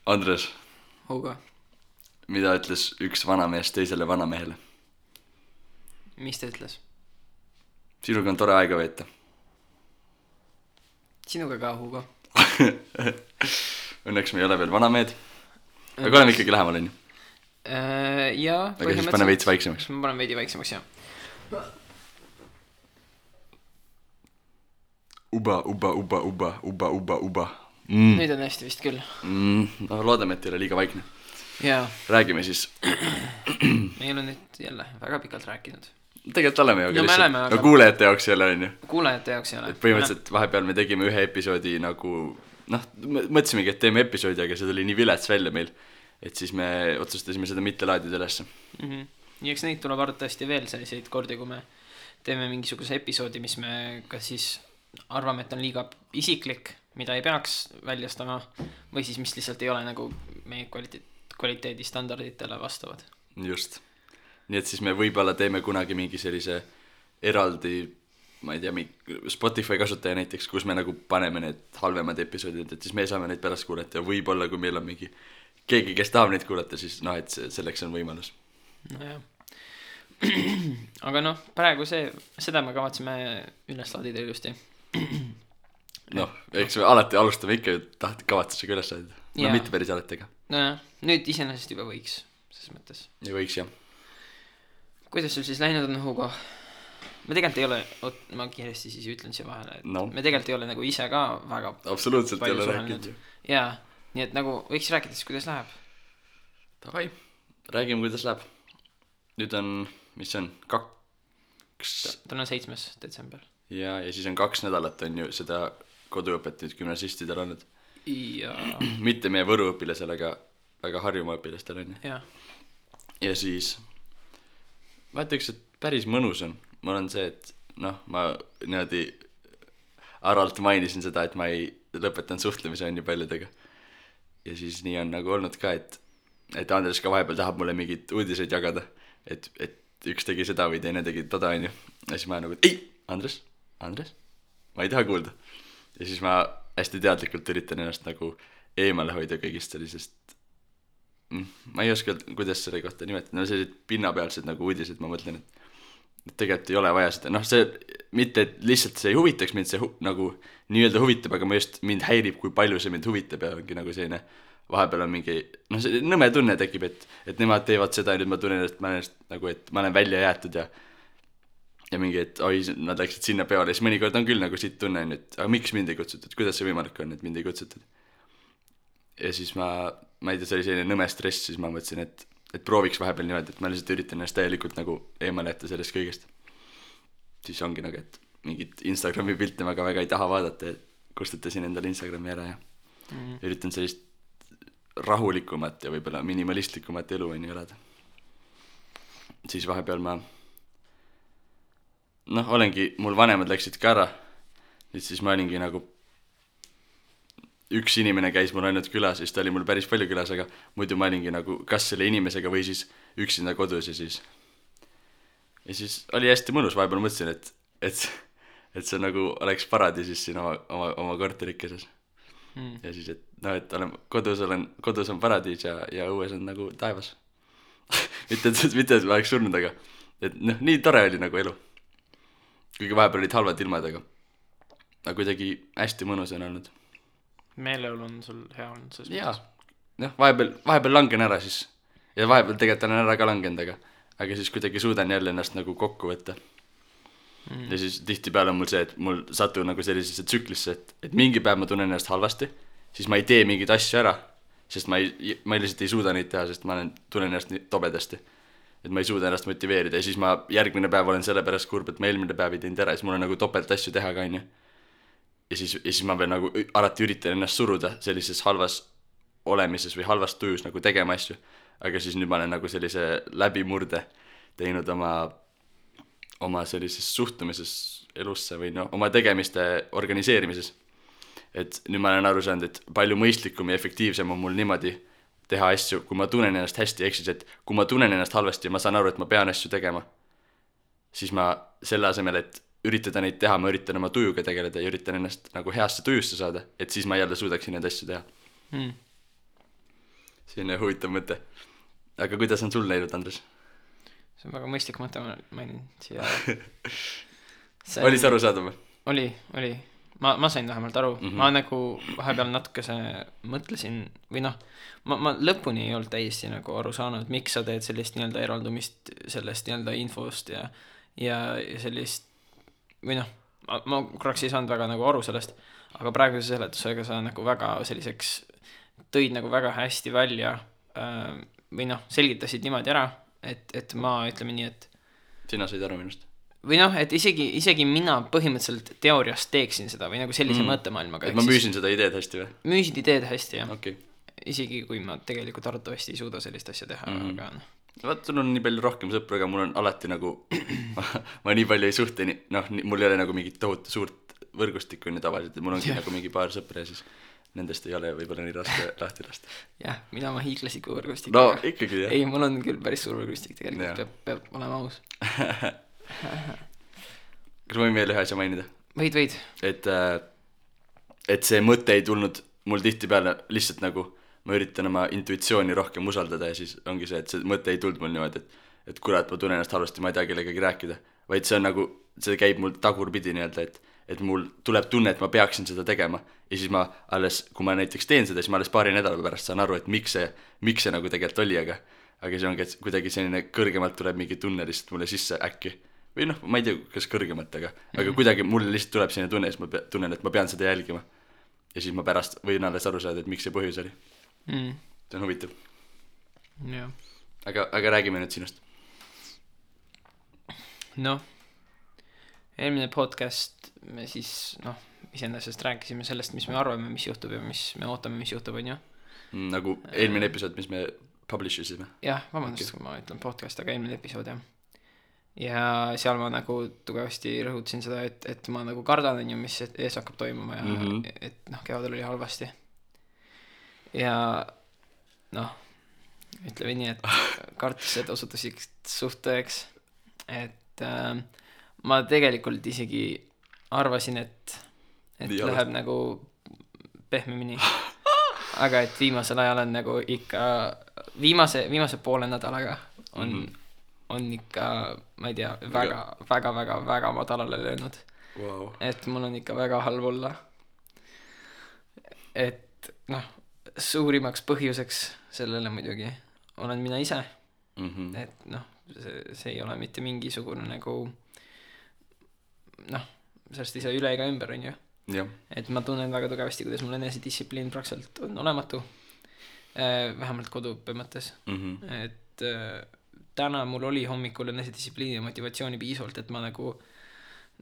Andres, Hugo, mida ütles üks vanamees teisele vanamehele? mis ta ütles? Sinuga on tore aega veeta. Sinuga ka, Hugo. Õnneks me ei ole veel vanamehed. Aga oleme ikkagi lähemal, on ju. Jaa, aga siis pane veits vaiksemaks. Ma panen veidi vaiksemaks, jah. Uba. Nüüd on hästi vist küll. No loodame, et ei ole liiga vaikne. Jaa. Räägime siis. Me ei ole nüüd jälle väga pikalt rääkinud. Tegelikult oleme ju, No me oleme, aga- no kuulejate jaoks ei ole, on ju. Kuulajate jaoks ei ole. Põhimõtteliselt vahepeal me tegime ühe episoodi nagu, noh, mõtlesimegi, et teeme episoodi, aga see tuli nii vilets välja meil, et siis me otsustasime seda mitte laadida ülesse. Ja eks neid tuleb arvatavasti veel selliseid kordi, kui me teeme mingisuguse episoodi, mis me kas siis arvame, et on liiga isiklik, mida ei peaks väljastama, või siis mis lihtsalt ei ole nagu meie kvaliteedistandarditele vastavad. Just. Nii et siis me võib-olla teeme kunagi mingi sellise eraldi, ma ei tea, Spotify kasutaja näiteks, kus me nagu paneme need halvemad episoodid, et siis me saame neid pärast kuulata ja võib-olla kui meil on mingi keegi, kes tahab neid kuulata, siis noh, et selleks on võimalus. Nojah. Aga noh, praegu seda me kavatseme üles laadida ilusti. Noh, eks me alati alustame ikka kavatsusega üles laadida. No Jaa. mitte päris alati, aga Nojah, nüüd iseenesest juba võiks, selles mõttes. ja võiks, jah. Kuidas sul siis läinud on, Hugo? Me tegelikult ei ole, ma kiiresti siis ütlen siia vahele, et No. me tegelikult ei ole nagu ise ka väga Absoluutselt ei palju ole suhelnud. rääkinud ju. Jaa, nii et nagu võiks rääkida siis, kuidas läheb. Davai, räägime, kuidas läheb. Nüüd on, mis see on, Täna on 7. detsember. ja siis on 2 nädalat on ju seda koduõpet nüüd gümnasistidel olnud. Ja Mitte meie Võru õpilasel, aga Harjumaa õpilastel on ju. jah, Ja siis ma ütleks, et päris mõnus on. Mul on see, et noh, ma niimoodi arvalt mainisin seda, et ma ei lõpetan suhtlemise on ju paljudega. Ja siis nii on nagu olnud ka, et Andres ka vahepeal tahab mulle mingid uudiseid jagada, et üks tegi seda või teine tegi toda on ju. Ja siis ma nagu, et ei, Andres, ma ei taha kuulda. Ja siis ma hästi teadlikult üritan ennast nagu eemale hoida kõigist sellisest, ma ei oska, kuidas selle kohta nimetada, no sellised pinnapealsed nagu uudised, ma mõtlen, et tegelikult ei ole vaja seda, noh see, mitte et lihtsalt see ei huvitaks mind, see nagu nii-öelda huvitab, aga ma just, mind häirib, kui palju see mind huvitab ja ongi nagu selline, vahepeal on mingi, noh see nõme tunne tekib, et nemad teevad seda ja nüüd ma tunnen, et ma olen nagu, et ma olen välja jäetud ja mingi, et oi, nad läksid sinna peale, siis mõnikord on küll nagu siit tunne, et aga miks mind ei kutsutud, kuidas see võimalik on, et mind ei kutsutud. Ja siis ma ei tea, see oli selline nõme stress, siis ma mõtlesin, et prooviks vahepeal niimoodi, et ma lihtsalt üritan ennast täielikult nagu eemale jätta sellest kõigest. Siis ongi nagu, et mingit Instagrami pilte ma ka väga ei taha vaadata ja kustutasin endale Instagrami ära ja üritan sellist rahulikumat ja võib-olla minimalistlikumat elu on ju elada. Siis vahepeal ma olengi, mul vanemad läksid ka ära, nüüd siis ma olingi nagu üks inimene käis mul ainult külas, siis ta oli mul päris palju külas, aga muidu ma olingi nagu kas selle inimesega või siis üksinda kodus ja siis oli hästi mõnus, vahepeal mõtlesin, et see nagu oleks paradiisis siin oma korterikeses. Ja siis, et noh, et kodus on paradiis ja õues on nagu taevas. mitte, et ma oleks surnud, aga et noh, nii tore oli nagu elu. Kuigi vahepeal olid halvad ilmad, aga kuidagi hästi mõnus on olnud. meeleolu on sul hea olnud selles jaa, noh, vahepeal langen ära siis ja vahepeal tegelikult olen ära ka langenud, aga siis kuidagi suudan jälle ennast nagu kokku võtta. Ja siis tihtipeale on mul see, et mul satun nagu sellisesse tsüklisse, et mingi päev ma tunnen ennast halvasti, siis ma ei tee mingeid asju ära, sest ma lihtsalt ei suuda neid teha, sest ma tunnen ennast nii tobedasti, et ma ei suuda ennast motiveerida ja siis ma järgmine päev olen selle pärast kurb, et ma eelmine päev ei teinud ära, siis mul on nagu topelt asju teha ka, on ju. Ja siis ma veel nagu alati üritan ennast suruda sellises halvas olemises või halvas tujus nagu tegema asju, aga siis nüüd ma olen nagu sellise läbimurde teinud oma sellises suhtumises elusse või oma tegemiste organiseerimises. Et nüüd ma olen aru saanud, et palju mõistlikum ja efektiivsem on mul niimoodi teha asju, kui ma tunnen ennast hästi, ehk siis, et kui ma tunnen ennast halvasti ja ma saan aru, et ma pean asju tegema, siis ma selle asemel, et üritada neid teha, ma üritan oma tujuga tegeleda ja üritan ennast nagu heasse tujusse saada, et siis ma jälle suudaksin neid asju teha. selline huvitav mõte. Aga kuidas on sul läinud, Andres? See on väga mõistlik mõte, ma mainin siia. Oli see arusaadav? Oli. Ma sain vähemalt aru. Ma nagu vahepeal natukese mõtlesin, või noh, ma lõpuni ei olnud täiesti nagu aru saanud, miks sa teed sellist nii-öelda eraldumist sellest nii-öelda infost ja sellist, või noh, ma korraks ei saanud väga nagu aru sellest, aga praeguse seletusega sa nagu väga selliseks tõid nagu väga hästi välja või noh, selgitasid niimoodi ära, et ma ütleme nii, et sina said aru minust? Või noh, et isegi mina põhimõtteliselt teoorias teeksin seda või nagu sellise mõttemaailmaga. Et ma müüsin seda ideed hästi või? Müüsid ideed hästi, jah. Okay. Isegi kui ma tegelikult arvatavasti ei suuda sellist asja teha, aga noh. Vaat, sul on nii palju rohkem sõpru, aga mul on alati nagu ma nii palju ei suhte, noh, mul ei ole nagu mingit tohutu suurt võrgustikku nii tavaliselt, et mul ongi nagu mingi paar sõpra ja siis nendest ei ole võib-olla nii raske lahti lasta. Jah, mina oma hiiglasliku võrgustikku. No ikkagi, jah. Ei, mul on küll päris suur võrgustik tegelikult, peab olema aus. Kas ma võin veel ühe asja mainida? Võid. Et see mõte ei tulnud mul tihtipeale lihtsalt nagu ma üritan oma intuitsiooni rohkem usaldada ja siis ongi see, et see mõte ei tulnud mul niimoodi, et kurat, ma tunnen ennast halvasti, ma ei tea kellegagi rääkida, vaid see on nagu, see käib mul tagurpidi nii-öelda, et mul tuleb tunne, et ma peaksin seda tegema ja siis ma alles, kui ma näiteks teen seda, siis ma alles paari nädala pärast saan aru, et miks see nagu tegelikult oli, aga see ongi, et kuidagi selline kõrgemalt tuleb mingi tunne lihtsalt mulle sisse äkki. Või noh, ma ei tea, kas kõrgemalt, aga kuidagi mulle lihtsalt tuleb selline tunne, siis ma tunnen, et ma pean seda jälgima. Ja siis ma pärast võin alles aru saada, et miks see põhjus oli. See on huvitav. Ja. Aga räägime nüüd sinust. Noh, eelmine podcast me siis, iseendasest rääkisime sellest, mis me arvame, mis juhtub ja mis me ootame, mis juhtub, on ju? Nagu eelmine episood, mis me publish isime. Jah, vabandust, kui ma ütlen podcast, aga eelmine episood, jah. Ja seal ma nagu tugevasti rõhutasin seda, et ma nagu kardan, mis ees hakkab toimuma ja et kevadel oli halvasti. Ja ütleme nii, et kartused osutusid suht tõeks, et ma tegelikult isegi arvasin, et läheb nagu pehmemini, aga et viimasel ajal on nagu ikka viimase poole nädalaga on ikka, ma ei tea, väga madalale löönud. Wow. Et mul on ikka väga halb olla. Et suurimaks põhjuseks sellele muidugi olen mina ise. Et see ei ole mitte mingisugune nagu sellest ei saa üle ega ümber, on ju. Ja. Et ma tunnen väga tugevasti, kuidas mul enesedistsipliin praktiliselt on olematu. Vähemalt koduõppe mõttes. Et täna mul oli hommikul enesedistsipliini ja motivatsiooni piisavalt, et ma nagu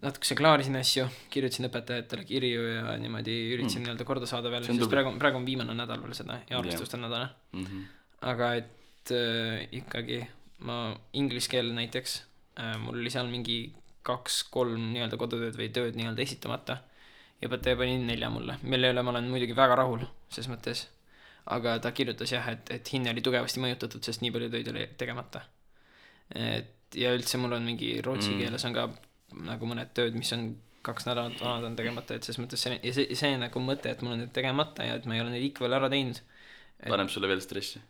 natukese klaarisin asju, kirjutasin õpetajatele kirju ja niimoodi üritasin nii-öelda korda saada veel, sest praegu on viimane nädal veel seda ja arvestuste nädala. Aga et ikkagi ma inglise keel näiteks, mul oli seal mingi 2-3 nii-öelda kodutööd või tööd nii-öelda esitamata ja õpetaja pani 4 mulle, mille üle ma olen muidugi väga rahul ses mõttes, aga ta kirjutas jah, et hinne oli tugevasti mõjutatud, sest nii palju töid oli tegemata. Ja üldse mul on mingi rootsi keeles on ka nagu mõned tööd, mis on 2 nädalat vanad on tegemata, et ses mõttes see nagu mõte, et mul on need tegemata ja et ma ei ole neid ikka veel ära teinud. Paneb sulle veel stressi?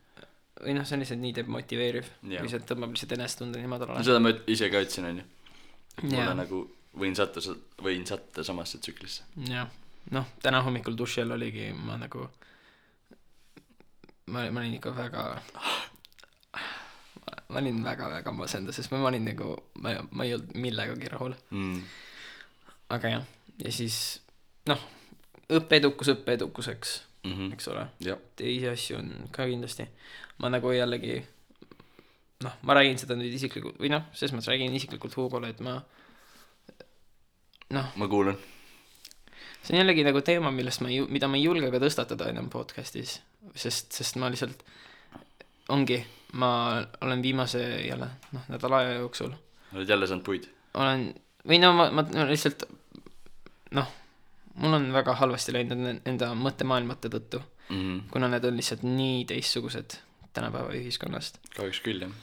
Või see on lihtsalt nii demotiveeriv, kui see tõmbab lihtsalt enestunde nii madalale. Seda ma ise ka ütlesin, on ju. Mulle nagu võin satta samasse tsüklisse. Jah, täna hommikul duši all oligi ma nagu ma olin ikka ma olin väga masenda, sest ma olin nagu ma ei olnud millegagi rahul. Aga jah, ja siis õppeedukuseks, eks ole. Teisi asju on ka kindlasti. Ma nagu jällegi ma räägin seda nüüd isiklikult või selles mõttes räägin isiklikult Hugole, et ma kuulen. See on jällegi nagu teema, mida ma ei julge ka tõstatada enam podcastis, sest ma lihtsalt ma olen viimase jälle nädala aja jooksul. Oled jälle saanud puid? Olen, või ma lihtsalt mul on väga halvasti läinud enda mõttemaailmate tõttu, kuna need on lihtsalt nii teistsugused tänapäeva ühiskonnast. Kahjuks küll, jah.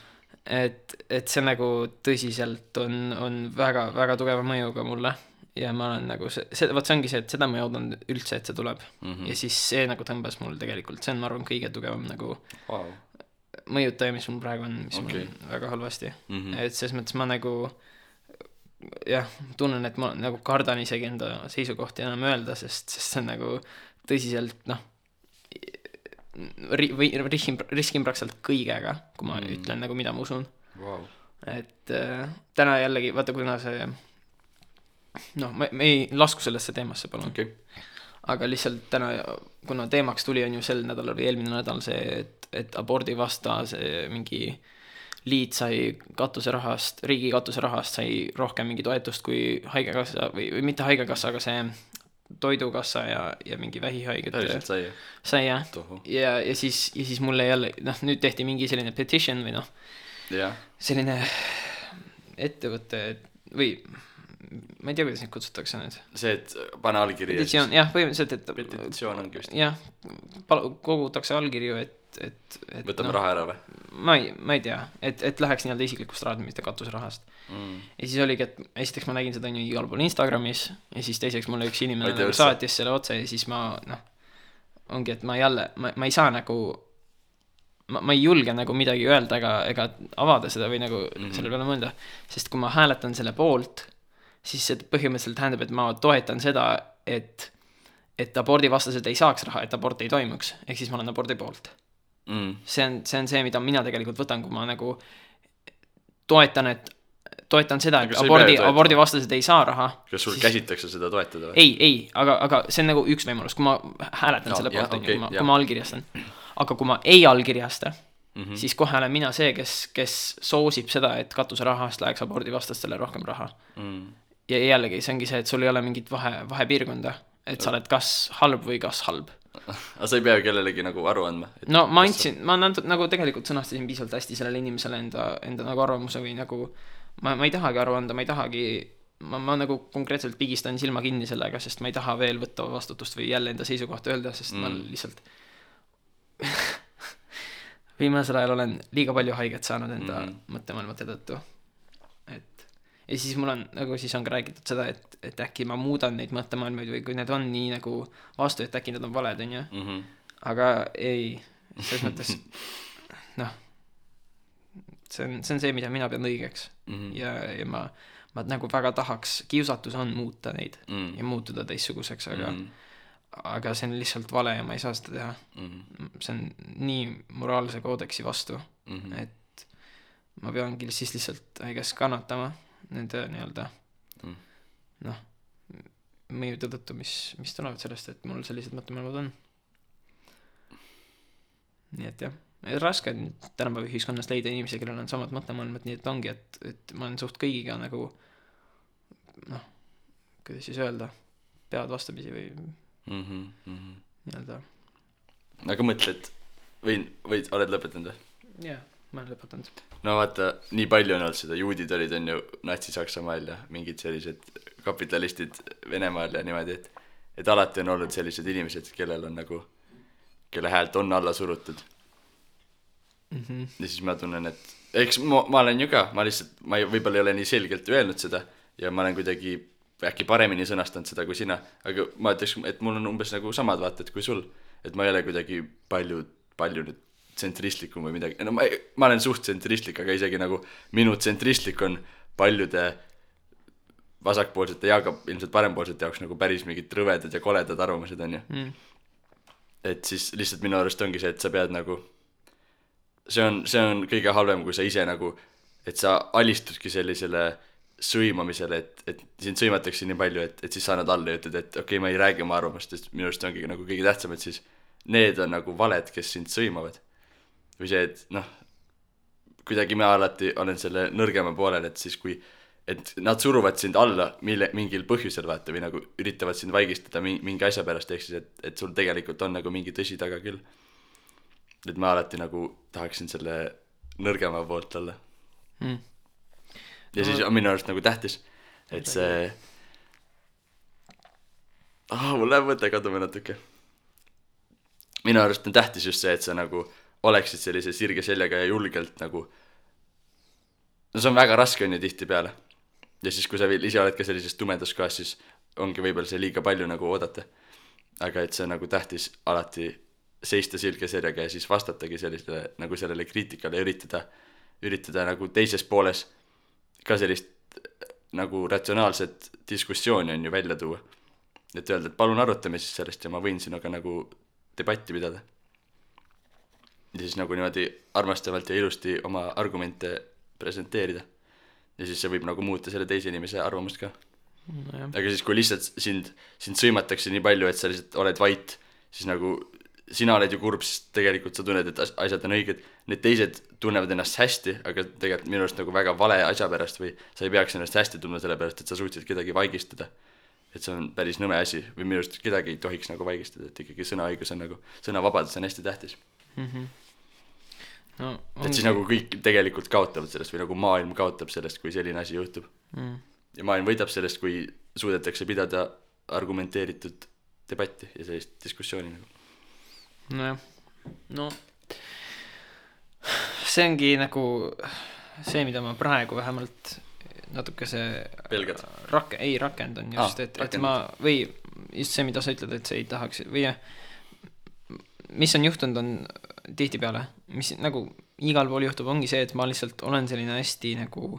Et see nagu tõsiselt on väga tugeva mõjuga mulle ja ma olen nagu vot see ongi see, et seda ma ei oodanud üldse, et see tuleb ja siis see nagu tõmbas mul tegelikult, see on, ma arvan, kõige tugevam nagu mõjutaja, mis mul praegu on, mis mul on väga halvasti et selles mõttes ma nagu jah, tunnen, et ma nagu kardan isegi enda seisukohti enam öelda, sest see on nagu tõsiselt riskin praktiliselt kõigega, kui ma ütlen nagu, mida ma usun et täna jällegi, vaata, kuna see me ei lasku sellesse teemasse, palun aga lihtsalt täna, kuna teemaks tuli, on ju sel nädalal või eelmine nädal see, et abordi vasta see mingi liit sai katuserahast, riigi katuserahast sai rohkem mingi toetust kui haigekassa või mitte haigekassa, aga see toidukassa ja mingi vähihaiget sai jah ja siis mulle jälle nüüd tehti mingi selline petition või selline ettevõte või ma ei tea, kuidas neid kutsutakse nüüd see, et pane allkiri petitsioon, jah, põhimõtteliselt, et petitsioon ongi vist jah, kogutakse allkirju, et võtame raha ära või? Ma ei tea, et läheks nii-öelda isiklikust rahast, mitte katuserahast ja siis oligi, et esiteks ma nägin seda nii igal pool Instagramis ja siis teiseks mulle üks inimene nagu saatis selle otse ja siis ma ongi, et ma ei saa nagu ma ei julge nagu midagi öelda ega avada seda või nagu selle peale mõelda, sest kui ma hääletan selle poolt, siis see põhimõtteliselt tähendab, et ma toetan seda, et abordi vastased ei saaks raha, et abort ei toimuks, ehk siis ma olen abordi poolt see on see, mida mina tegelikult võtan, kui ma nagu toetan seda, et abordi vastased ei saa raha. Kas sul käsitakse seda toetada? Ei, aga see on nagu üks võimalus, kui ma hääletan selle poolt, kui ma allkirjastan. Aga kui ma ei allkirjasta, siis kohe olen mina see, kes soosib seda, et katuserahast läheks abordi vastastele rohkem raha. Ja jällegi, see ongi see, et sul ei ole mingit vahepiirkonda, et sa oled kas halb või kas halb. Aga sa ei pea kellelegi nagu aru andma? No ma nagu tegelikult sõnastasin piisavalt hästi sellele inimesele enda nagu arvamuse või nagu ma ei tahagi aru anda, ma ei tahagi ma nagu konkreetselt pigistan silma kinni sellega, sest ma ei taha veel võtta vastutust või jälle enda seisukohta öelda, sest ma lihtsalt viimasel ajal olen liiga palju haiget saanud enda mõttemaailmate tõttu. Ja siis mul on nagu siis on ka räägitud seda, et äkki ma muudan neid mõttemaailmaid või kui need on nii nagu vastu, et äkki need on valed, on ju. Aga ei, selles mõttes see on see, mida mina pean õigeks ja ma nagu väga tahaks, kiusatus on muuta neid ja muutuda teistsuguseks, aga see on lihtsalt vale ja ma ei saa seda teha. See on nii moraalse koodeksi vastu, et ma peangi siis lihtsalt kannatama nende nii-öelda mõjude tõttu, mis tulevad sellest, et mul sellised mõttemaailmad on. Nii et jah, raske on tänapäeva ühiskonnas leida inimesi, kellel on samad mõttemaailmad, nii et ongi, et ma olen suht kõigiga nagu kuidas siis öelda, pead vastapisi või nii-öelda. Aga mõtled, või oled lõpetanud või? Jah, ma olen lõpetanud. No vaata, nii palju on olnud seda, juudid olid on ju Natsi-Saksamaal ja mingid sellised kapitalistid Venemaal ja niimoodi, et alati on olnud sellised inimesed, kellel on nagu, kelle häält on alla surutud. Ja siis ma tunnen, et eks ma olen ju ka, ma võib-olla ei ole nii selgelt öelnud seda ja ma olen kuidagi äkki paremini sõnastanud seda kui sina, aga ma ütleks, et mul on umbes nagu samad vaated kui sul, et ma ei ole kuidagi palju nüüd tsentristlikum või midagi, no ma olen suht tsentristlik, aga isegi nagu minu tsentristlik on paljude vasakpoolsete ja ka ilmselt parempoolsete jaoks nagu päris mingid rõvedad ja koledad arvamused on ju. Et siis lihtsalt minu arust ongi see, et sa pead nagu see on kõige halvem, kui sa ise nagu, et sa alistudki sellisele sõimamisele, et sind sõimatakse nii palju, et siis sa annad alla ja ütled, et okei, ma ei räägi oma arvamust, sest minu arust ongi nagu kõige tähtsam, et siis need on nagu valed, kes sind sõimavad. Või see, et kuidagi ma alati olen selle nõrgema poolel, et siis kui et nad suruvad sind alla mingil põhjusel vaata või nagu üritavad sind vaigistada mingi asja pärast, ehk siis, et sul tegelikult on nagu mingi tõsi taga küll. Et ma alati nagu tahaksin selle nõrgema poolt olla. Ja siis on minu arust nagu tähtis, et see mul läheb mõte kaduma natuke. Minu arust on tähtis just see, et sa nagu oleksid sellise sirge seljaga ja julgelt nagu no see on väga raske on ju tihti peale ja siis kui sa veel ise oled ka sellises tumedas kohas, siis ongi võib-olla see liiga palju nagu oodata. Aga et see nagu tähtis alati seista silge serjaga ja siis vastatagi sellisele nagu sellele kriitikale ja üritada nagu teises pooles ka sellist nagu ratsionaalset diskussiooni on ju välja tuua. Et öelda, et palun arutame siis sellest ja ma võin sinuga nagu debatti pidada. Ja siis nagu niimoodi armastavalt ja ilusti oma argumente presenteerida. Ja siis see võib nagu muuta selle teise inimese arvamust ka. No, aga siis kui lihtsalt sind sõimatakse nii palju, et sa lihtsalt oled vait, siis nagu sina oled ju kurb, sest tegelikult sa tunned, et asjad on õiged. Need teised tunnevad ennast hästi, aga tegelikult minu arust nagu väga vale asja pärast või sa ei peaks ennast hästi tundma selle pärast, et sa suutsid kedagi vaigistada. Et see on päris nõme asi või minu arust kedagi ei tohiks nagu vaigistada, et ikkagi sõnaõigus on nagu, sõnavabadus on hästi tähtis. No, et siis nagu kõik tegelikult kaotavad sellest või nagu maailm kaotab sellest, kui selline asi juhtub. Ja maailm võidab sellest, kui suudetakse pidada argumenteeritud debatti ja sellist diskussiooni nagu. Nojah, no see ongi nagu see, mida ma praegu vähemalt natuke see pelgad? rakendan just, et ma või just see, mida sa ütled, et sa ei tahaks või mis on juhtunud on tihtipeale, mis nagu igal pool juhtub, ongi see, et ma lihtsalt olen selline hästi nagu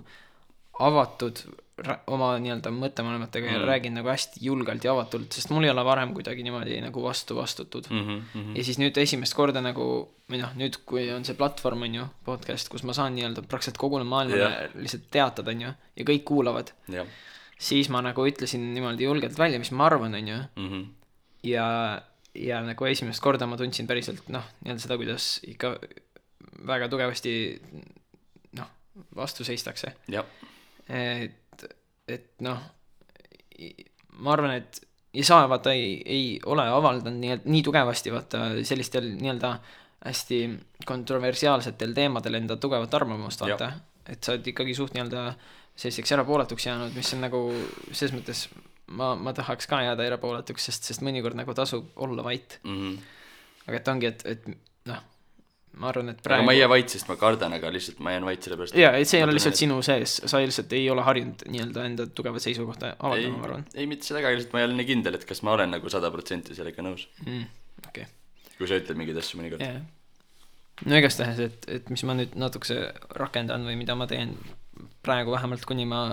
avatud oma nii-öelda mõttemaailmatega ja räägin nagu hästi julgelt ja avatult, sest mul ei ole varem kuidagi niimoodi nagu vastutud. Ja siis nüüd esimest korda nagu, või noh, nüüd kui on see platvorm, on ju, podcast, kus ma saan nii-öelda praktiliselt kogune maailmale lihtsalt teatada, on ju, ja kõik kuulavad, siis ma nagu ütlesin niimoodi julgelt välja, mis ma arvan, on ju, ja nagu esimest korda ma tundsin päriselt, noh, nii-öelda seda, kuidas ikka väga tugevasti, noh, vastu seistakse. Et noh, ma arvan, et ja sa vaata ei ole avaldanud nii tugevasti vaata sellistel nii-öelda hästi kontroversiaalsetel teemadel enda tugevat arvamust vaata, et sa oled ikkagi suht nii-öelda selliseks erapooletuks jäänud, mis on nagu selles mõttes ma tahaks ka jääda erapooletuks, sest mõnikord nagu tasub olla vait. Aga et ongi, et noh, ma arvan, et praegu... Aga ma ei jää vait, sest ma kardan, aga lihtsalt ma jään vait selle pärast. Jaa, et see ei ole lihtsalt sinu sees. Sa lihtsalt ei ole harjunud nii-öelda enda tugevat seisukohta avaldama, ma arvan. Ei, mitte seda, aga lihtsalt ma ei ole nii kindel, et kas ma olen nagu 100% sellega nõus. Okay. Kui sa ütled mingid asju mõnikord. No igast tähes, et mis ma nüüd natukese rakendan või mida ma teen praegu vähemalt, kuni ma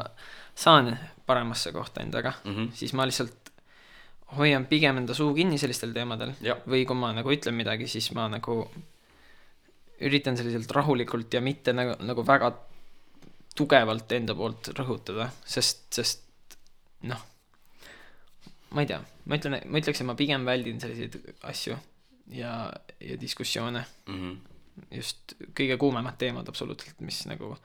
saan paremasse kohta endaga, siis ma lihtsalt hoian pigem enda suu kinni sellistel teemadel. Või kui ma nagu ütlen midagi, siis ma nagu üritan selliselt rahulikult ja mitte nagu väga tugevalt enda poolt rõhutada, sest noh, ma ei tea, ma ütleks, et ma pigem väldin selliseid asju ja diskussioone. Just kõige kuumemad teemad absoluutselt, mis nagu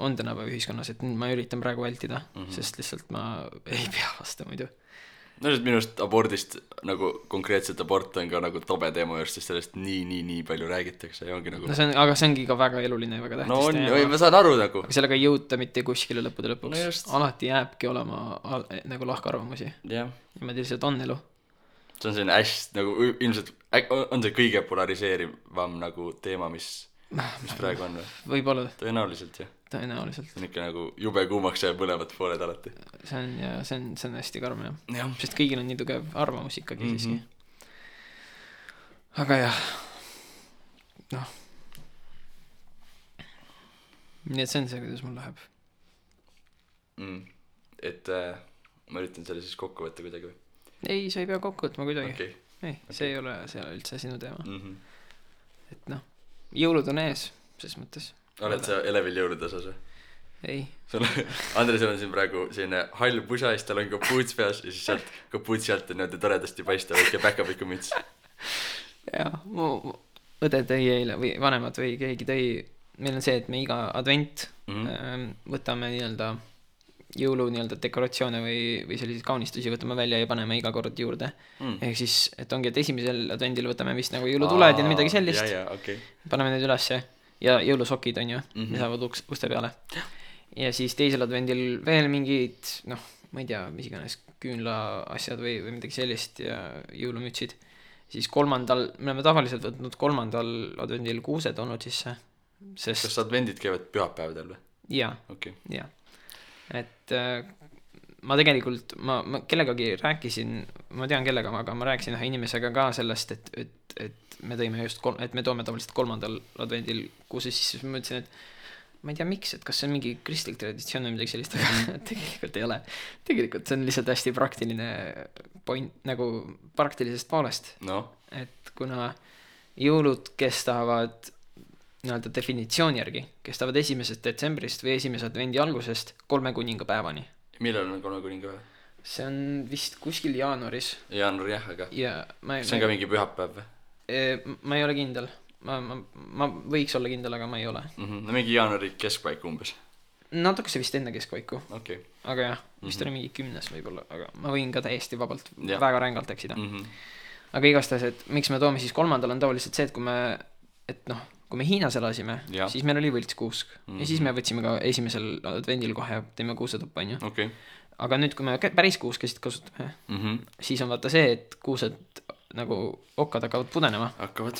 on tänapäeva ühiskonnas, et ma üritan praegu vältida, sest lihtsalt ma ei pea vastu muidu. No sest minust abordist nagu konkreetselt abort on ka nagu tobe teema just, sest sellest nii palju räägitakse ja ongi nagu... No aga see ongi ka väga eluline ja väga tähtis teema. No on, ma saan aru nagu. Aga sellega ei jõuta mitte kuskile lõppude lõpuks. No alati jääbki olema nagu lahkarvamusi. Niimoodi lihtsalt on elu. See on selline hästi nagu ilmselt on see kõige polariseerivam nagu teema, mis praegu on või? Võib-olla. Tõenäoliselt, jah. Tõenäoliselt. See on ikka nagu jube kuumaks ja põlevad pooled alati. See on hästi karm, jah. Sest kõigil on nii tugev arvamus ikkagi siiski. Aga jah. Noh. Nii et see on see, kuidas mul läheb. Et ma üritan selle siis kokku võtta kuidagi või? Ei, sa ei pea kokku võtma kuidagi. Ei, see ei ole üldse sinu teema. Et noh, jõulud on ees, ses mõttes. Oled sa elevil jõulude osas või? Ei. Andresel on siin praegu selline hall pusa, siis tal on kapuuts peas ja siis sealt kapuutsi alt on niimoodi toredasti paista väike päkapiku müts. Jaa, mu õde tõi eile või vanemad või keegi tõi, meil on see, et me iga advent võtame nii-öelda jõulu nii-öelda dekoratsioone või selliseid kaunistusi võtame välja ja paneme iga kord juurde. Ehk siis, et ongi, et esimesel advendil võtame vist nagu jõulutuled ja midagi sellist. Paneme need ülesse ja jõulusokid on ju, mis saavad uste peale. Ja siis teisel advendil veel mingid, noh, ma ei tea, mis iganes küünla asjad või midagi sellist ja jõulumütsid. Siis kolmandal, me oleme tavaliselt võtnud kolmandal advendil kuused olnud sisse. Kas advendid käivad pühapäevadel või? Jaa, jaa. et ma tegelikult, ma kellegagi rääkisin, ma tean kellega, aga ma rääkisin ühe inimesega ka sellest, et me tõime just, et me toome tavaliselt 3. advendil kuuse sisse, siis ma mõtlesin, et ma ei tea miks, et kas see on mingi kristlik traditsioon või midagi sellist, aga tegelikult ei ole. Tegelikult see on lihtsalt hästi praktiline point, nagu praktilisest poolest. No. Et kuna jõulud kestavad nii-öelda definitsiooni järgi, kestavad 1. detsembrist või 1. advendi algusest 3 kuningapäevani. Millal on 3 kuningapäev? See on vist kuskil jaanuaris. Jaanuar jah, aga ja see on ka mingi pühapäev või? Ma ei ole kindel. Ma võiks olla kindel, aga ma ei ole. No mingi jaanuari keskpaik umbes. Natuke see vist enne keskpaiku. Okay. Aga jah, vist oli mingi 10 võib-olla, aga ma võin ka täiesti vabalt väga rängalt eksida. Aga igastahes, et miks me toome siis 3. on tavaliselt see, et kui me Hiinas elasime, siis meil oli võltskuusk. Ja siis me võtsime ka 1. advendil kohe, teeme kuusetuppa, on ju. Okay. Aga nüüd, kui me päris kuuskesid kasutame, siis on vaata see, et kuused nagu okkad hakkavad pudenema. Hakkavad.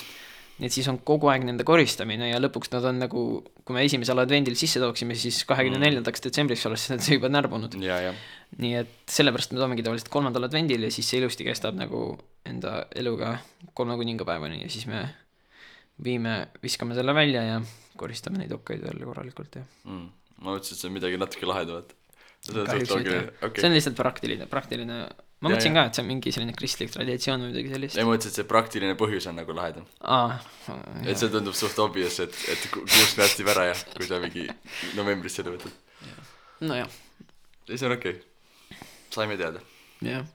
Nii et siis on kogu aeg nende koristamine ja lõpuks nad on nagu, kui me 1. advendil sisse tooksime, siis 24. detsembriks oleks need juba närbunud. Ja. Nii et sellepärast me toomegi tavaliselt 3. advendil ja siis see ilusti kestab nagu enda eluga 3 kuningapäevani ja siis me viskame selle välja ja koristame neid okkaid jälle korralikult. Ja. Ma mõtlesin, et see on midagi natuke lahedavat. Okay. See on lihtsalt praktiline. Ma mõtlesin ka, et see on mingi selline kristlik traditsioon või midagi sellist. Ei mõtlesin, et see praktiline põhjus on nagu lahedam. Et see tundub suht obvious, et kuusk nästib ära ja kui sa mingi novembris selle võtad. No jah. See on okei. Saime teada. Jah.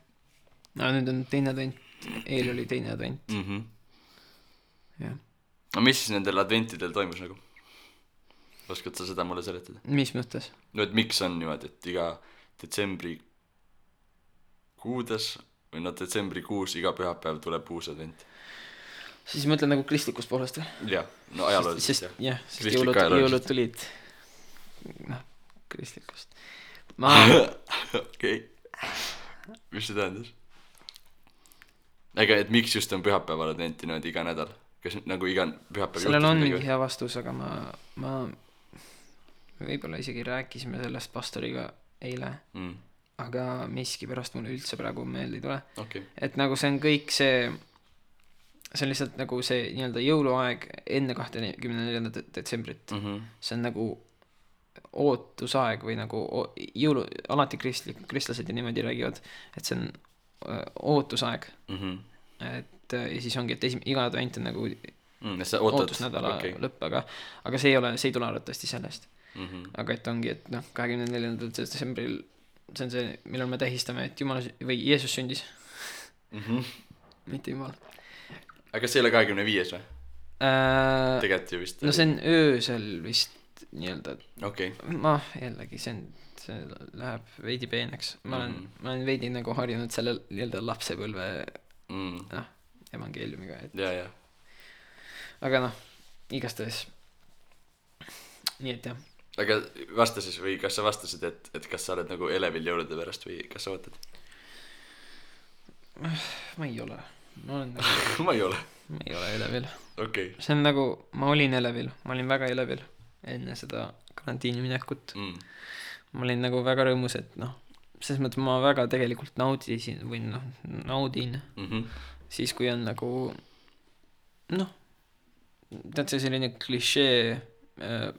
No nüüd on 2. advent. Eil oli 2. advent. Jah. No mis siis nendel adventidel toimus nagu? Oskad sa seda mulle seletada? Mis mõttes? No et miks on niimoodi, et iga detsembri kuudes või detsembrikuus iga pühapäev tuleb uus advent. Siis mõtlen nagu kristlikust poolest või? Jah, no ajalooliselt jah. Jah, sest jõulud tulid kristlikust. Okei. Mis see tähendas? Ega, et miks just on pühapäeval adventi niimoodi iga nädal? Kas nagu iga pühapäev sellel on mingi hea vastus, aga ma võib-olla isegi rääkisime sellest pastoriga eile. Aga miski pärast mulle üldse praegu meelde ei tule. Okay. Et nagu see on kõik see on lihtsalt nagu see nii-öelda jõuluaeg enne 24. detsembrit. See on nagu ootusaeg või nagu alati kristlased ja niimoodi räägivad, et see on ootusaeg. Et ja siis ongi, et iga advent on nagu ootusnädala lõpp, aga see ei tule arvatavasti sellest. Aga et ongi, et 24. detsembril see on see, millal me tähistame, et Jumal või Jeesus sündis. Mitte Jumal. Aga kas see ei ole 25 või? Tegelikult ju vist. No see on öösel vist nii-öelda. Okay. Ma jällegi, see läheb veidi peeneks. Ma olen veidi nagu harjunud selle nii-öelda lapsepõlve evangeeliumiga. Ja. Aga igastahes. Nii et jah. Aga vasta siis või kas sa vastasid, et kas sa oled nagu elevil jõulude pärast või kas sa võtad? Ma ei ole. Ma ei ole elevil. Okay. See on nagu, ma olin elevil. Ma olin väga elevil enne seda karantiini minekut. Ma olin nagu väga rõõmus, et selles mõttes ma väga tegelikult naudin. Siis kui on nagu tead see selline klišee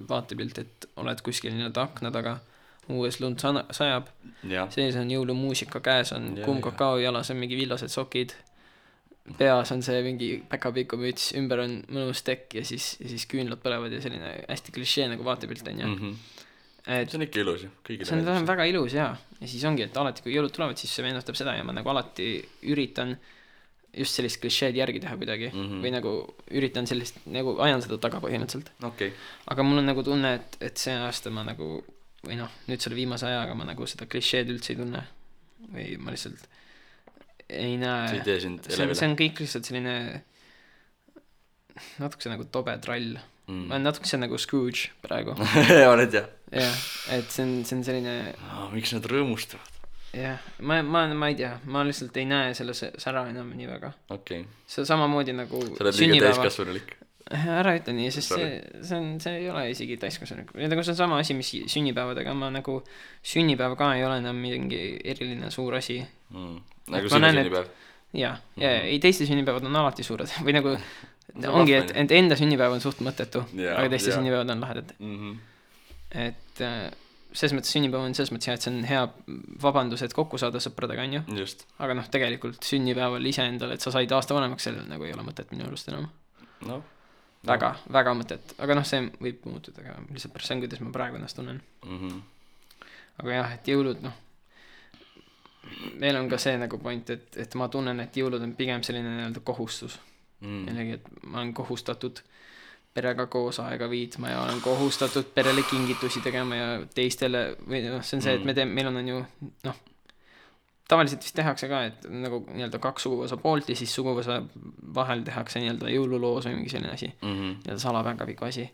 vaatepilt, et oled kuskil nii-öelda akna taga, uues lund sajab, sees on jõulumuusika, käes on kuum kakao, jalas on mingi villased sokid, peas on see mingi päkapiku müts, ümber on mõnus tekk ja siis küünlad põlevad ja selline hästi klišee nagu vaatepilt on ja see on ikka ilus ju. See on väga ilus ja siis ongi, et alati kui jõulud tulevad, siis see meenutab seda ja ma nagu alati üritan just sellist klišeed järgi teha kuidagi või nagu üritan sellist, nagu ajan seda taga põhimõtteliselt. Okay. Aga mul on nagu tunne, et see aasta ma nagu, või nüüd selle viimase ajaga ma nagu seda klišeed üldse ei tunne või ma lihtsalt ei näe. See ei tee sind elevile. See on kõik lihtsalt selline natukese nagu tobe trall. Ma olen natukese nagu Scrooge praegu. Oled jah? Jah, et see on selline miks nad rõõmustavad? Jah, ma ei tea, ma lihtsalt ei näe selle sära enam nii väga. Okay. See samamoodi nagu sa oled liiga täiskasvanulik. ära ütle nii, sest see ei ole isegi täiskasvanu. Nagu see on sama asi, mis sünnipäevadega, ma nagu sünnipäev ka ei ole enam mingi eriline suur asi. Nagu sinu sünnipäev? Jaa, ei teiste sünnipäevad on alati suured või nagu ongi, et enda sünnipäev on suht mõttetu, aga teiste sünnipäevad on lahedad. Et selles mõttes sünnipäev on selles mõttes hea, et see on hea vabandus, et kokku saada sõpradega, on ju. Just. Aga noh, tegelikult sünnipäeval ise endale, et sa said aasta vanemaks, sellel nagu ei ole mõtet minu arust enam. Väga mõtet, aga noh, see võib muutuda, aga lihtsalt pärast see on, kuidas ma praegu ennast tunnen. Aga jah, et jõulud, noh, meil on ka see nagu point, et ma tunnen, et jõulud on pigem selline nii-öelda kohustus. Jällegi, et ma olen kohustatud perega koos aega viitma ja olen kohustatud perele kingitusi tegema ja teistele, või noh, see on see, et meil on ju, noh, tavaliselt vist tehakse ka, et nagu nii-öelda 2 suguvõsa poolt ja siis suguvõsa vahel tehakse nii-öelda jõululoos või mingi selline asi, nii-öelda salapäkaviku asi.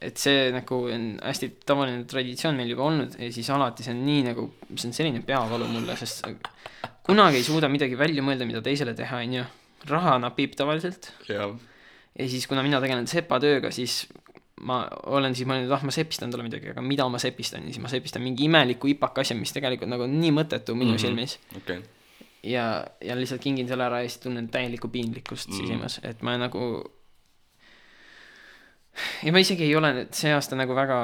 Et see nagu on hästi tavaline traditsioon meil juba olnud ja siis alati see on nii nagu, see on selline peavalu mulle, sest kunagi ei suuda midagi välja mõelda, mida teisele teha, on ju. Raha napib tavaliselt. Ja siis kuna mina tegelen sepatööga, siis ma olen siis mõelnud, ma sepistan talle midagi, aga mida ma sepistan? Ja siis ma sepistan mingi imeliku ipaka asja, mis tegelikult nagu on nii mõttetu minu silmis. Okay. Ja lihtsalt kingin selle ära ja siis tunnen täielikku piinlikkust sisimas, et ma nagu ja ma isegi ei ole see aasta nagu väga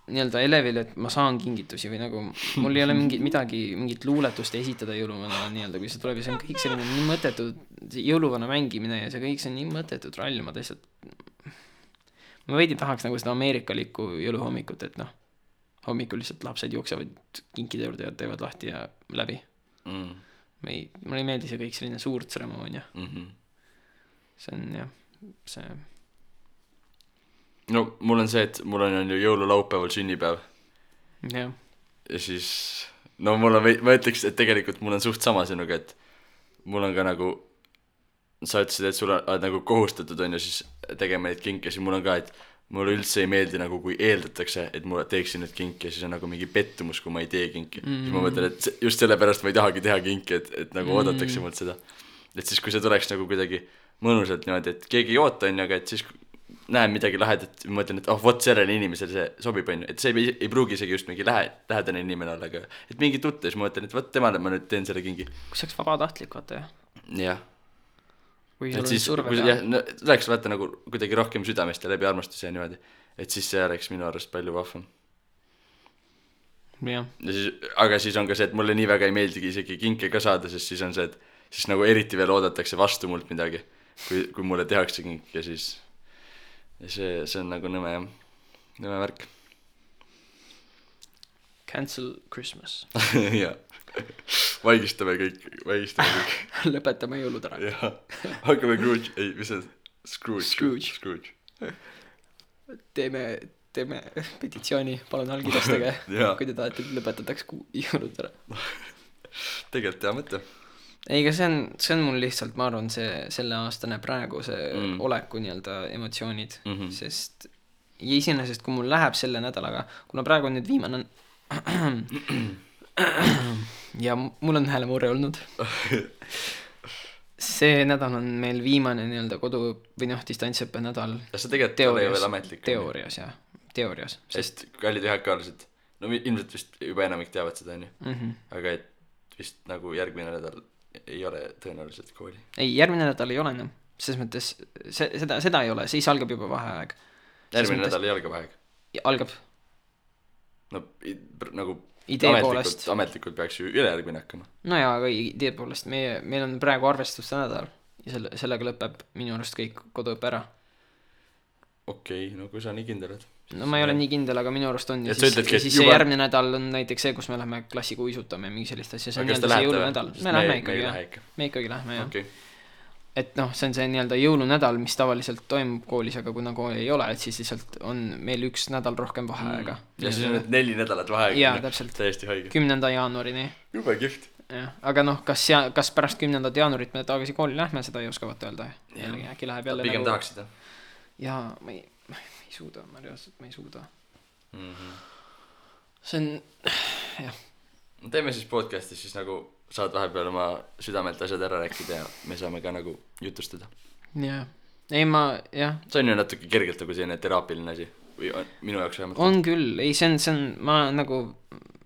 nii-öelda elevil, et ma saan kingitusi või nagu mul ei ole mingit luuletust esitada jõuluvana nii-öelda, kui see tuleb ja see on kõik selline nii mõttetu jõuluvana mängimine ja see kõik see on nii mõttetu trall, ma ma veidi tahaks nagu seda ameerikalikku jõuluhommikut, et noh, hommikul lihtsalt lapsed jooksevad kinkide juurde ja teevad lahti ja läbi. Mulle ei meeldi see kõik selline suur tseremoonia. See on jah, see no mul on see, et mul on ju jõululaupäeval sünnipäev. Ja siis no mul on, ma ütleks, et tegelikult mul on suht sama sinuga, et mul on ka nagu sa ütlesid, et sul on nagu kohustatud on ju siis tegema neid kinke, siis mul on ka, et mulle üldse ei meeldi nagu kui eeldatakse, et mulle teeksin nüüd kinki ja siis on nagu mingi pettumus, kui ma ei tee kinki. Siis ma mõtlen, et just sellepärast ma ei tahagi teha kinki, et nagu oodatakse mult seda. Et siis kui see tuleks nagu kuidagi mõnusalt niimoodi, et keegi ei oota on ju, aga et siis näen midagi lahedat, ma mõtlen, et vot sellele inimesele see sobib on ju, et see ei pruugi isegi just mingi lähedane inimene olla, aga et mingi tutte, siis ma mõtlen, et vot temale ma nüüd teen selle kingi. Kui see oleks vabatahtlik, vaata jah? Jah. Et siis, läheks vaata nagu kuidagi rohkem südamest ja läbi armastuse ja niimoodi, et siis see oleks minu arust palju vahvam. Ja siis, aga siis on ka see, et mulle nii väga ei meeldigi isegi kinke ka saada, sest siis on see, et siis nagu eriti veel oodatakse vastu mult midagi, kui mulle tehakse kink ja siis ja see on nagu nõme värk. Cancel Christmas. Jah. Vaigistame kõik. Lõpetame jõulud ära. Jah. Hakkame Scrooge. Ei, mis see? Scrooge. Teeme petitsiooni, palun allkirjastage, kui te tahate, et lõpetataks jõulud ära. Tegelikult hea mõte. Ei, aga see on mul lihtsalt, ma arvan, selle aastane praegu see oleku nii-öelda emotsioonid, sest iseenesest, kui mul läheb selle nädalaga, kuna praegu on nüüd viimane ja mul on häälemurre olnud. See nädal on meil viimane nii-öelda kodu või noh, distantsõppe nädal. Ja see tegelikult ei ole veel ametlik. Teoorias. Sest kallid ühekaalased, no ilmselt vist juba enamik teavad seda, aga et vist nagu järgmine nädal ei ole tõenäoliselt kooli. Ei, järgmine nädal ei ole enam. Selles mõttes, seda ei ole, siis algab juba vaheaeg. Järgmine nädal ei alga vaheaeg? Algab. No nagu ametlikult peaks ju ülejärgmine hakkama. No jaa, aga idee poolest meil on praegu arvestuste nädal ja sellega lõpeb minu arust kõik koduõppe ära. Okei, no kui sa nii kindel oled. No ma ei ole nii kindel, aga minu arust on ja siis see järgmine nädal on näiteks see, kus me lähme klassiga uisutame ja mingi sellist asja, see on nii-öelda see jõulunädal. Me ikkagi lähme, jah. Okay. Et noh, see on see nii-öelda jõulunädal, mis tavaliselt toimub koolis, aga kuna kooli ei ole, et siis lihtsalt on meil üks nädal rohkem vaheaega. Ja siis on need 4 nädalat vaheaega. Jaa, täpselt. Täiesti haige. 10. jaanuarini. Jube kihvt. Aga noh, kas pärast 10. jaanuarit me tagasi kooli lähme, seda ei oskavat öelda. Äkki läheb jälle pigem tahaksid, jaa, ma ei suuda, ma ei suuda. See on, jah. Teeme siis podcastis siis nagu saad vahepeal oma südamelt asjad ära rääkida ja me saame ka nagu jutustada. Jah, ei ma, jah, see on ju natuke kergelt nagu selline teraapiline asi või minu jaoks vähemalt on küll, ei see on, ma nagu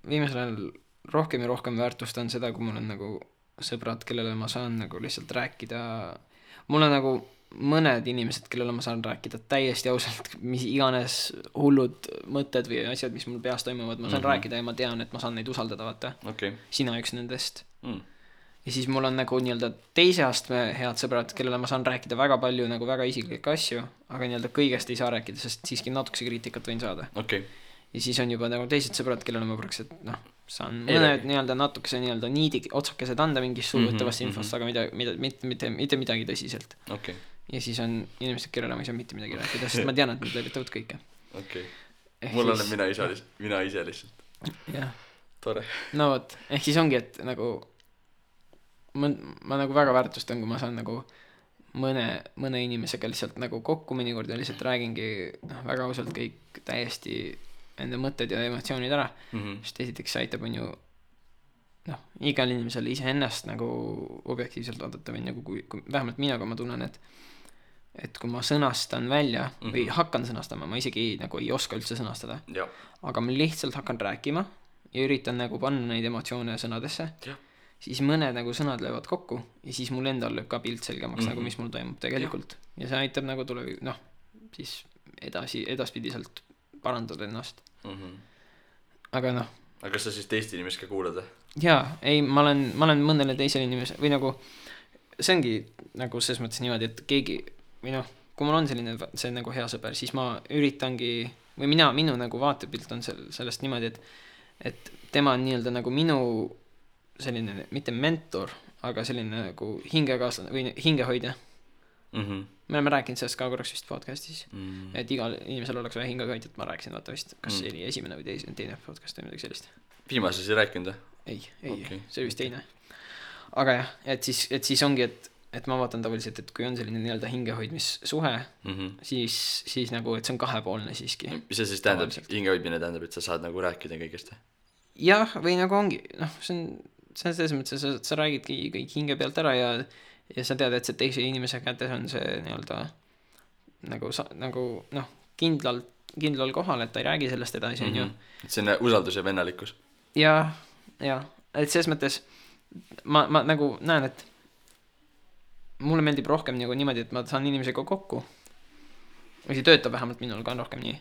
viimasel ajal rohkem ja rohkem väärtustan seda, kui mul on nagu sõbrad, kellele ma saan nagu lihtsalt rääkida, mul on nagu mõned inimesed, kellele ma saan rääkida täiesti ausalt, mis iganes hullud mõtted või asjad, mis mul peas toimuvad, ma saan rääkida ja ma tean, et ma saan neid usaldada, vaata. Sina üks nendest. Ja siis mul on nagu nii-öelda teise astme head sõbrad, kellele ma saan rääkida väga palju nagu väga isiklikke asju, aga nii-öelda kõigest ei saa rääkida, sest siiski natukese kriitikat võin saada. Ja siis on juba nagu teised sõbrad, kellele ma praktiliselt, noh, saan mõned nii-öelda natukese nii-öelda niidi otsakesed anda mingis suuvõttavast infost, aga mitte midagi tõsiselt. Ja siis on inimesed, kellele ma ei saa mitte midagi rääkida, sest ma tean, et nad leevitavad kõike. Mul olen mina ise lihtsalt. Jah. Tore. No võt, ehk siis ongi, et nagu ma nagu väga väärtustan, kui ma saan nagu mõne inimesega lihtsalt nagu kokku mõnikord ja lihtsalt räägingi väga ausalt kõik täiesti enda mõtted ja emotsioonid ära, sest esiteks see aitab on ju igal inimesel iseennast nagu objektiivselt vaadata või nagu kui vähemalt mina, kui ma tunnen, et kui ma sõnastan välja või hakkan sõnastama, ma isegi nagu ei oska üldse sõnastada, aga ma lihtsalt hakkan rääkima ja üritan nagu panna neid emotsioone sõnadesse, siis mõned nagu sõnad löövad kokku ja siis mul endal lööb ka pilt selgemaks nagu mis mul toimub tegelikult ja see aitab nagu siis edaspidiselt parandada ennast. Aga aga kas sa siis teist inimest ka kuulad? Jaa, ei, ma olen mõnele teisele inimesele või nagu see ongi nagu selles mõttes niimoodi, et keegi või kui mul on see nagu hea sõber, siis ma üritangi või minu nagu vaatepilt on sellest niimoodi, et tema on nii-öelda nagu minu selline, mitte mentor, aga selline nagu hingekaaslane või hingehoidja. Me oleme rääkinud sellest ka korraks vist podcastis, et igal inimesel oleks vaja hingehoidjat, ma rääkisin vaata vist, kas see oli esimene või teine podcast või midagi sellist. Viimases ei rääkinud? Ei, see oli vist teine. Aga jah, et siis ongi, et ma vaatan tavaliselt, et kui on selline nii-öelda hingehoidmissuhe, siis nagu, et see on kahepoolne siiski. Mis see siis tähendab, hingehoidmine tähendab, et sa saad nagu rääkida kõigest? Jah, või nagu ongi, see on selles mõttes, sa räägidki kõik hinge pealt ära ja sa tead, et see teise inimese kätes on see nii-öelda nagu kindlal kohal, et ta ei räägi sellest edasi, on ju. Et see on usaldus ja vennalikkus. Ja, et selles mõttes ma nagu näen, et mulle meeldib rohkem nagu niimoodi, et ma saan inimesega kokku või see töötab vähemalt minul ka rohkem nii.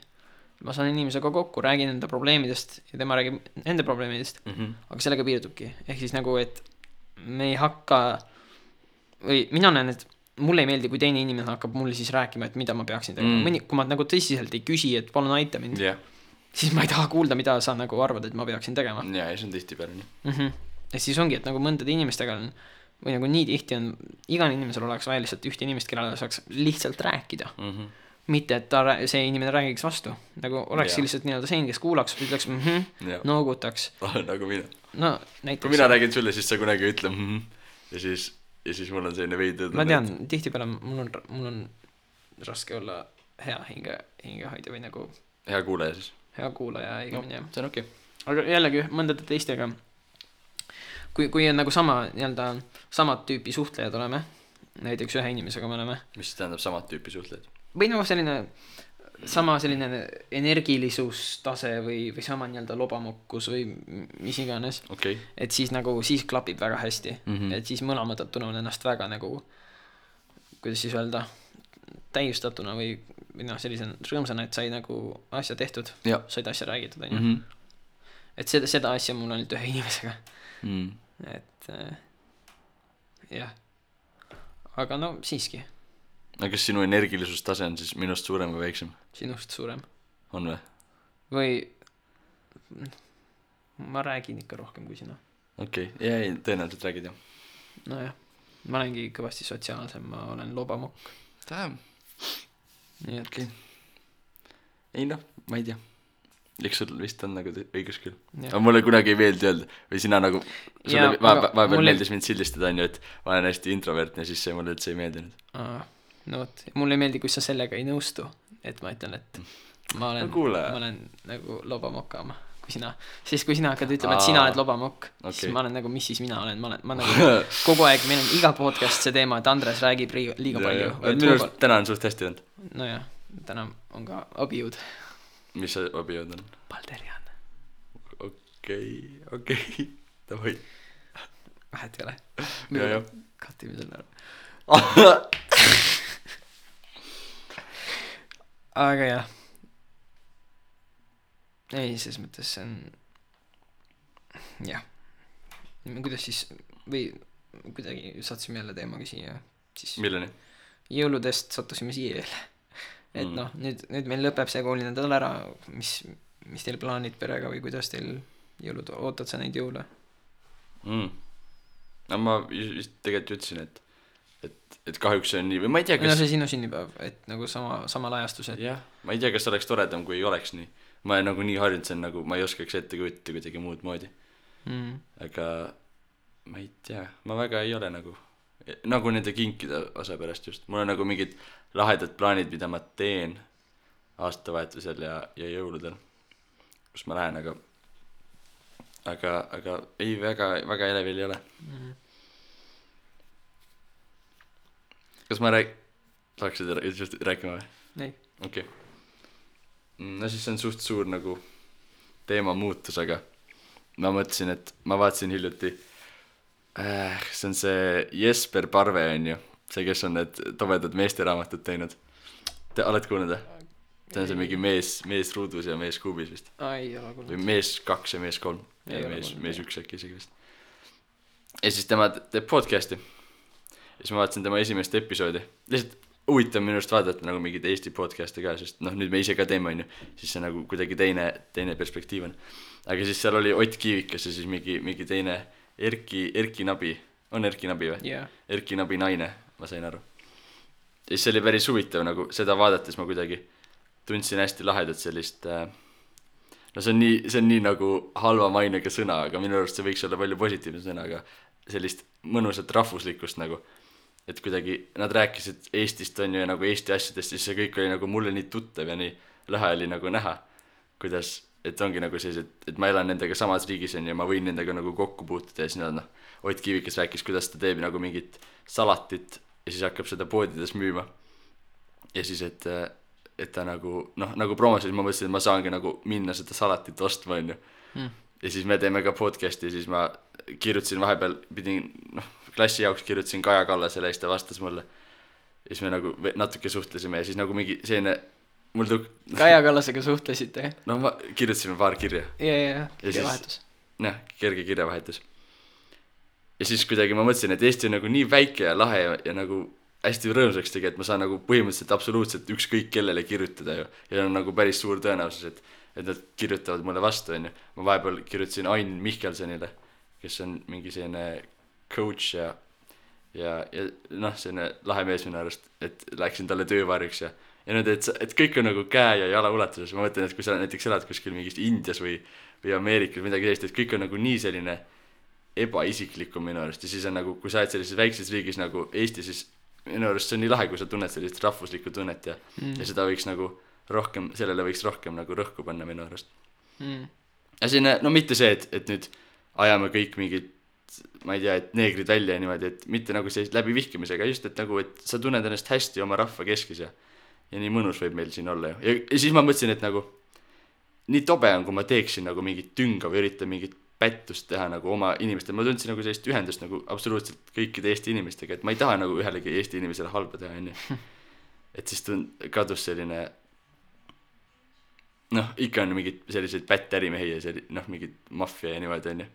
Ma saan inimesega kokku, räägin enda probleemidest ja tema räägib enda probleemidest, aga sellega piirdubki. Ehk siis nagu, et me ei hakka või mina näen, et mulle ei meeldi, kui teine inimene hakkab mulle siis rääkima, et mida ma peaksin tegema. Kui ma nagu tõsiselt ei küsi, et palun aita mind, siis ma ei taha kuulda, mida sa nagu arvad, et ma peaksin tegema. Ja see on tihti peale nii. Ja siis ongi, et nagu mõndade inimestega on, või nagu nii tihti on, igal inimesel oleks vaja lihtsalt ühte inimest, kellele saaks lihtsalt rääkida. Mitte, et see inimene räägiks vastu. Nagu oleks lihtsalt nii-öelda see, kes kuulaks, ütleks noogutaks. Nagu mina. No, näiteks. Kui mina räägin sulle, siis sa kunagi ütle ja siis mul on selline veidi. Ma tean, tihtipeale mul on raske olla hea hingehoidja või nagu hea kuulaja siis. Hea kuulaja, igamini jah. See on okei. Aga jällegi mõndade teistega kui on nagu samad tüüpi suhtlejad oleme, näiteks ühe inimesega me oleme. Mis tähendab samad tüüpi suhtlejad? Või nagu sama selline energilisustase või sama nii-öelda lobamokkus või mis iganes. Et siis nagu siis klapib väga hästi. Et siis mõlemad tunnevad ennast väga nagu, kuidas siis öelda, täiustatuna või sellise rõõmsana, et sai nagu asja tehtud, said asja räägitud, on ju. Et seda asja mul on ühe inimesega. Et jah. Aga no siiski. Aga kas sinu energilisustase on siis minust suurem või väiksem? Sinust suurem. On või? Või ma räägin ikka rohkem kui sina. Ja tõenäoliselt räägid jah. No jah, ma olengi kõvasti sotsiaalsem, ma olen lobamokk. Tähem. Nii et ei noh, ma ei tea. Eks sul vist on nagu õigus küll. Aga mulle kunagi ei meeldi öelda või sina nagu sulle vahepeal meeldis mind sildistada, on ju, et ma olen hästi introvertne, siis see mulle üldse ei meeldinud. No võt, mulle ei meeldi, kui sa sellega ei nõustu, et ma ütlen, et ma olen nagu lobamokama, kui sina. Siis kui sina hakkad ütlema, et sina oled lobamokk, siis ma olen nagu, mis siis mina olen, ma nagu kogu aeg, meil on iga podcast see teema, et Andres räägib liiga palju. Minu arust täna on suht hästi olnud. Nojah, täna on ka abijõud. Mis see abijõud on? Balderian. Okei. Davai. Vähet ei ole. Ja. Katime selle ära. Aga jah. Ei, selles mõttes see on... Jah. Kuidas siis... Või kuidagi sattusime jälle teemaga siia. Siis... Milleni? Jõuludest sattusime siia jälle. Et noh, nüüd meil lõpeb see koolinädal ära. Mis teil plaanid perega või kuidas teil jõulud, ootad sa neid jõule? No ma just tegelikult ütlesin, et kahjuks see on nii, või ma ei tea, kas... No see sinu sünnipäev, et nagu samal ajastus, et... Jah, ma ei tea, kas oleks toredam, kui ei oleks nii. Ma olen nagu nii harjunud, see on nagu, ma ei oskaks ette kujutada kuidagi muud moodi. Aga ma ei tea, ma väga ei ole nagu nende kinkide osa pärast just. Mul on nagu mingid lahedad plaanid, mida ma teen aastavahetusel ja jõuludel, kus ma lähen, aga ei, väga elevil ei ole. Kas ma saaksid just rääkima või? Ei. Okei. No siis see on suht suur nagu teema muutus, aga ma mõtlesin, et ma vaatasin hiljuti see on see Jesper Parve on ju, see, kes on need tobedad meesteraamatud teinud. Te oled kuulnud või? See on see mingi mees ruudus ja mees kuubis vist. Ei ole kuulnud. Või mees 2 ja mees 3 ja mees 1 äkki isegi vist. Ja siis tema teeb podcasti. Ja siis ma vaatasin tema esimest episoodi. Lihtsalt huvitav minu arust vaadata nagu mingid Eesti podcasti ka, sest noh, nüüd me ise ka teeme on ju, siis see nagu kuidagi teine perspektiiv on. Aga siis seal oli Ott Kiivikas ja siis mingi teine Erki Nabi. On Erki Nabi või? Yeah. Erki Nabi naine, ma sain aru. Ja siis see oli päris huvitav nagu seda vaadates ma kuidagi tundsin hästi lahedat sellist no see on nii nagu halva mainega sõna, aga minu arust see võiks olla palju positiivne sõna, aga sellist mõnusat rahvuslikkust nagu, et kuidagi nad rääkisid Eestist on ju ja nagu Eesti asjadest, siis see kõik oli nagu mulle nii tuttav ja nii lahe oli nagu näha, kuidas, et ongi nagu sellised, et ma elan nendega samas riigis on ja ma võin nendega nagu kokku puutuda ja siis nad Ott Kiivikas rääkis, kuidas ta teeb nagu mingit salatit ja siis hakkab seda poodides müüma ja siis, et ta nagu, noh, nagu promosid ma mõtlesin, et ma saangi nagu minna seda salatit ostma, on ju. Ja siis me teeme ka podcasti ja siis ma kirjutasin vahepeal, klassi jaoks kirjutasin Kaja Kallasele ja siis ta vastas mulle. Ja siis me nagu natuke suhtlesime ja siis nagu mingi selline, Kaja Kallasega suhtlesite? No ma kirjutasime paar kirja. Ja kirjavahetus. Jah, kerge kirjavahetus. Ja siis kuidagi ma mõtlesin, et Eesti on nagu nii väike ja lahe ja nagu hästi rõõmsaks tegi, et ma saan nagu põhimõtteliselt absoluutselt ükskõik kellele kirjutada ju. Ja on nagu päris suur tõenäosus, et nad kirjutavad mulle vastu, on ju. Ma vahepeal kirjutasin Ain Mihkelsonile, kes on mingi selline coach ja noh, selline lahe mees minu arust, et läksin talle töövarjuks ja nüüd, et kõik on nagu käe ja jala ulatuses. Ma mõtlen, et kui sa näiteks elad kuskil mingis Indias või Ameerikas midagi sellist, et kõik on nagu nii selline ebaisiklikum minu arust. Ja siis on nagu, kui sa oled sellises väikses riigis nagu Eesti, siis minu arust see on nii lahe, kui sa tunned sellist rahvuslikku tunnet ja seda võiks nagu rohkem, sellele võiks rohkem nagu rõhku panna minu arust. Ja selline, no mitte see, et nüüd ajame kõik mingid, ma ei tea, et neegrid välja ja niimoodi, et mitte nagu sellist läbi vihkimisega, just et nagu, et sa tunned ennast hästi oma rahva keskis ja nii mõnus võib meil siin olla ju. Ja siis ma mõtlesin, et nagu nii tobe on, kui ma teeksin nagu mingit tünga või üritan mingit pättust teha nagu oma inimestele. Ma tundsin nagu sellist ühendust nagu absoluutselt kõikide Eesti inimestega, et ma ei taha nagu ühelegi Eesti inimesele halba teha, on ju. Et siis kadus selline, noh, ikka on mingid sellised pättärimehi ja noh, mingid maffia ja niimoodi, on ju.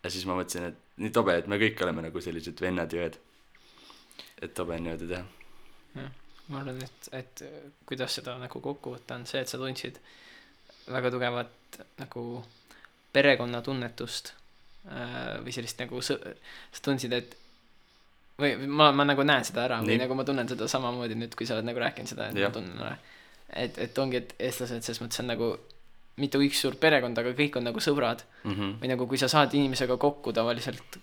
Ja siis ma mõtlesin, et nii tobe, et me kõik oleme nagu sellised vennad ja õed. Et tobe on niimoodi teha. Ja, ma arvan, et kuidas seda nagu kokku võtta on see, et sa tundsid väga tugevat nagu perekonna tunnetust või sellist nagu sa tundsid, et või ma nagu näen seda ära või nagu ma tunnen seda samamoodi nüüd, kui sa oled nagu rääkinud seda, et ma tunnen ära, et ongi, et eestlased selles mõttes on nagu mitte üks suur perekond, aga kõik on nagu sõbrad või nagu kui sa saad inimesega kokku tavaliselt,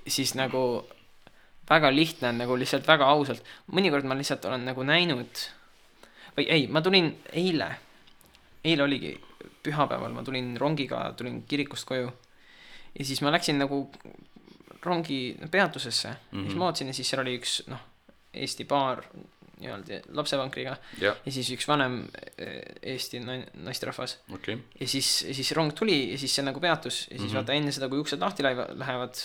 siis nagu väga lihtne on nagu lihtsalt väga ausalt, mõnikord ma lihtsalt olen nagu näinud või ei, ma tulin eile eile oligi pühapäeval, ma tulin rongiga, tulin kirikust koju ja siis ma läksin nagu rongi peatusesse siis ma vaatasin ja siis seal oli üks Eesti paar nii-öelda lapsevankriga ja siis üks vanem Eesti naisterahvas ja siis rong tuli ja siis see nagu peatus ja siis vaata enne seda, kui uksed lahti lähevad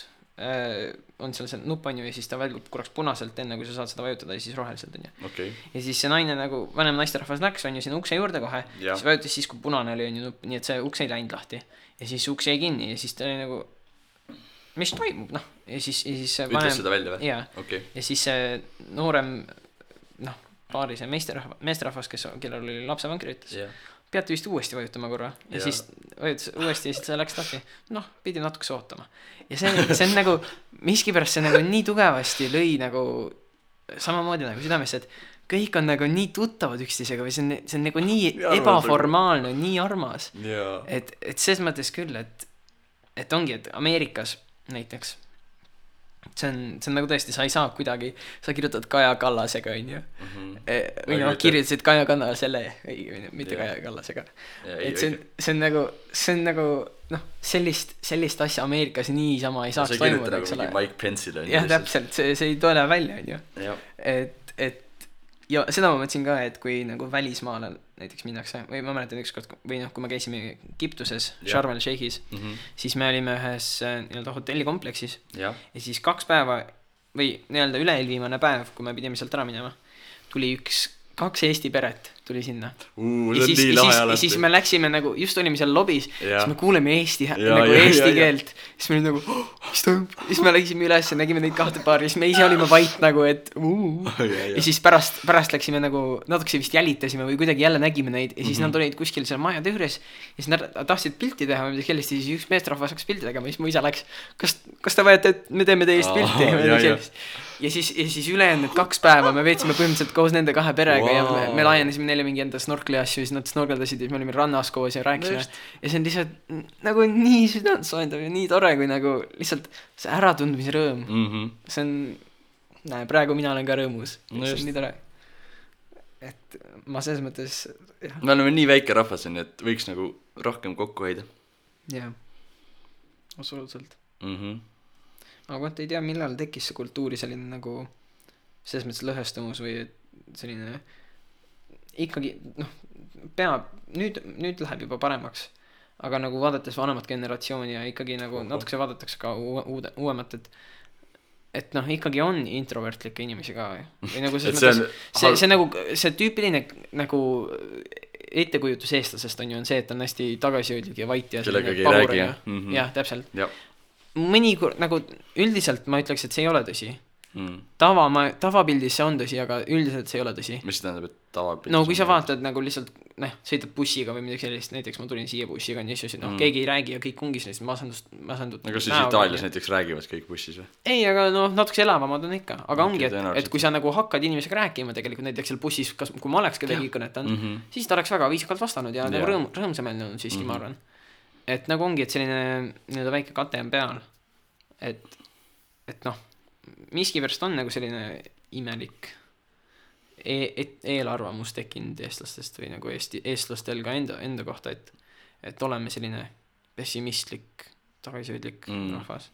on seal see nupp on ju ja siis ta välgub korraks punaselt enne kui sa saad seda vajutada ja siis roheliselt on ju ja siis see naine nagu vanem naisterahvas läks on ju sinna ukse juurde kohe siis vajutas siis kui punane oli on ju nupp nii et see uks ei läinud lahti ja siis uks jäi kinni ja siis ta oli nagu mis toimub ja siis vanem ütles seda välja või? ja siis see noorem paari see meesterahvas kellel oli lapsevankri ütles peate vist uuesti vajutama korra ja siis vajutas uuesti ja siis see läks lahti pidi natukese ootama ja see on nagu miskipärast see nagu nii tugevasti lõi nagu samamoodi nagu südamesse et kõik on nagu nii tuttavad üksteisega või see on nagu nii ebaformaalne nii armas et selles mõttes küll et ongi et Ameerikas näiteks see on nagu tõesti sa ei saa kuidagi sa kirjutad Kaja Kallasega on ju või kirjutasid Kaja Kallasele mitte Kaja Kallasega et see on nagu sellist asja Ameerikas niisama ei saaks toimuda eks ole Mike Pence'ile jah täpselt see ei tule välja on ju et ja seda ma mõtlesin ka et kui nagu välismaale näiteks minnakse või ma mäletan ükskord või kui me käisime Egiptuses Sharm el Sheikhis siis me olime ühes nii-öelda hotellikompleksis ja siis 2 päeva või nii-öelda üle-eelviimane päev kui me pidime sealt ära minema tuli 2 Eesti peret tuli sinna ja siis me läksime nagu just olime seal lobis siis me kuuleme Eesti keelt siis me olime nagu mis toimub siis me läksime üles ja nägime neid 2 paari siis me ise olime vait nagu et ja siis pärast läksime nagu natukese vist jälitasime või kuidagi jälle nägime neid ja siis nad olid kuskil seal maja juures ja siis nad tahtsid pilti teha või midagi sellist ja siis üks meesterahvas hakkas pilti tegema ja siis mu isa läks kas te vajate et me teeme teist pilti ja siis ülejäänud 2 päeva me veetsime põhimõtteliselt koos nende 2 perega ja me laienesime neile mingi enda snorkli asju siis nad snorkeldasid ja siis me olime rannas koos ja rääkisime ja see on lihtsalt nagu nii südantsoojendav ja nii tore kui nagu lihtsalt see äratundmise rõõm see on praegu mina olen ka rõõmus see on nii tore et ma selles mõttes me oleme nii väike rahvas on et võiks nagu rohkem kokku hoida jah absoluutselt aga vaata ei tea millal tekkis see kultuuri selline nagu selles mõttes lõhestumus või selline ikkagi peab nüüd läheb juba paremaks aga nagu vaadates vanemat generatsiooni ja ikkagi nagu natukese vaadatakse ka uuemat et ikkagi on introvertlikke inimesi ka või nagu see nagu see tüüpiline nagu ettekujutus eestlasest on ju on see et on hästi tagasihoidlik ja vait ja kellegagi ei räägi jah täpselt mõnikord nagu üldiselt ma ütleks et see ei ole tõsi tavapildis see on tõsi aga üldiselt see ei ole tõsi mis tähendab et tavapildis no kui sa vaatad nagu lihtsalt sõidad bussiga või midagi sellist näiteks ma tulin siia bussiga ja siis keegi ei räägi ja kõik ongi sellist masendut aga siis Itaalias näiteks räägivad kõik bussis või? ei aga natuke elavamad on ikka aga ongi et kui sa nagu hakkad inimesega rääkima tegelikult näiteks seal bussis kui ma oleks kedagi kõnetanud siis ta oleks väga viisakalt vastanud ja nagu rõõmsameelne on siiski ma arvan et nagu ongi et selline nii-öelda väike kate on peal et miskipärast on nagu selline imelik eelarvamus tekkinud eestlastest või nagu eestlastel ka enda kohta et oleme selline pessimistlik tagasihoidlik rahvas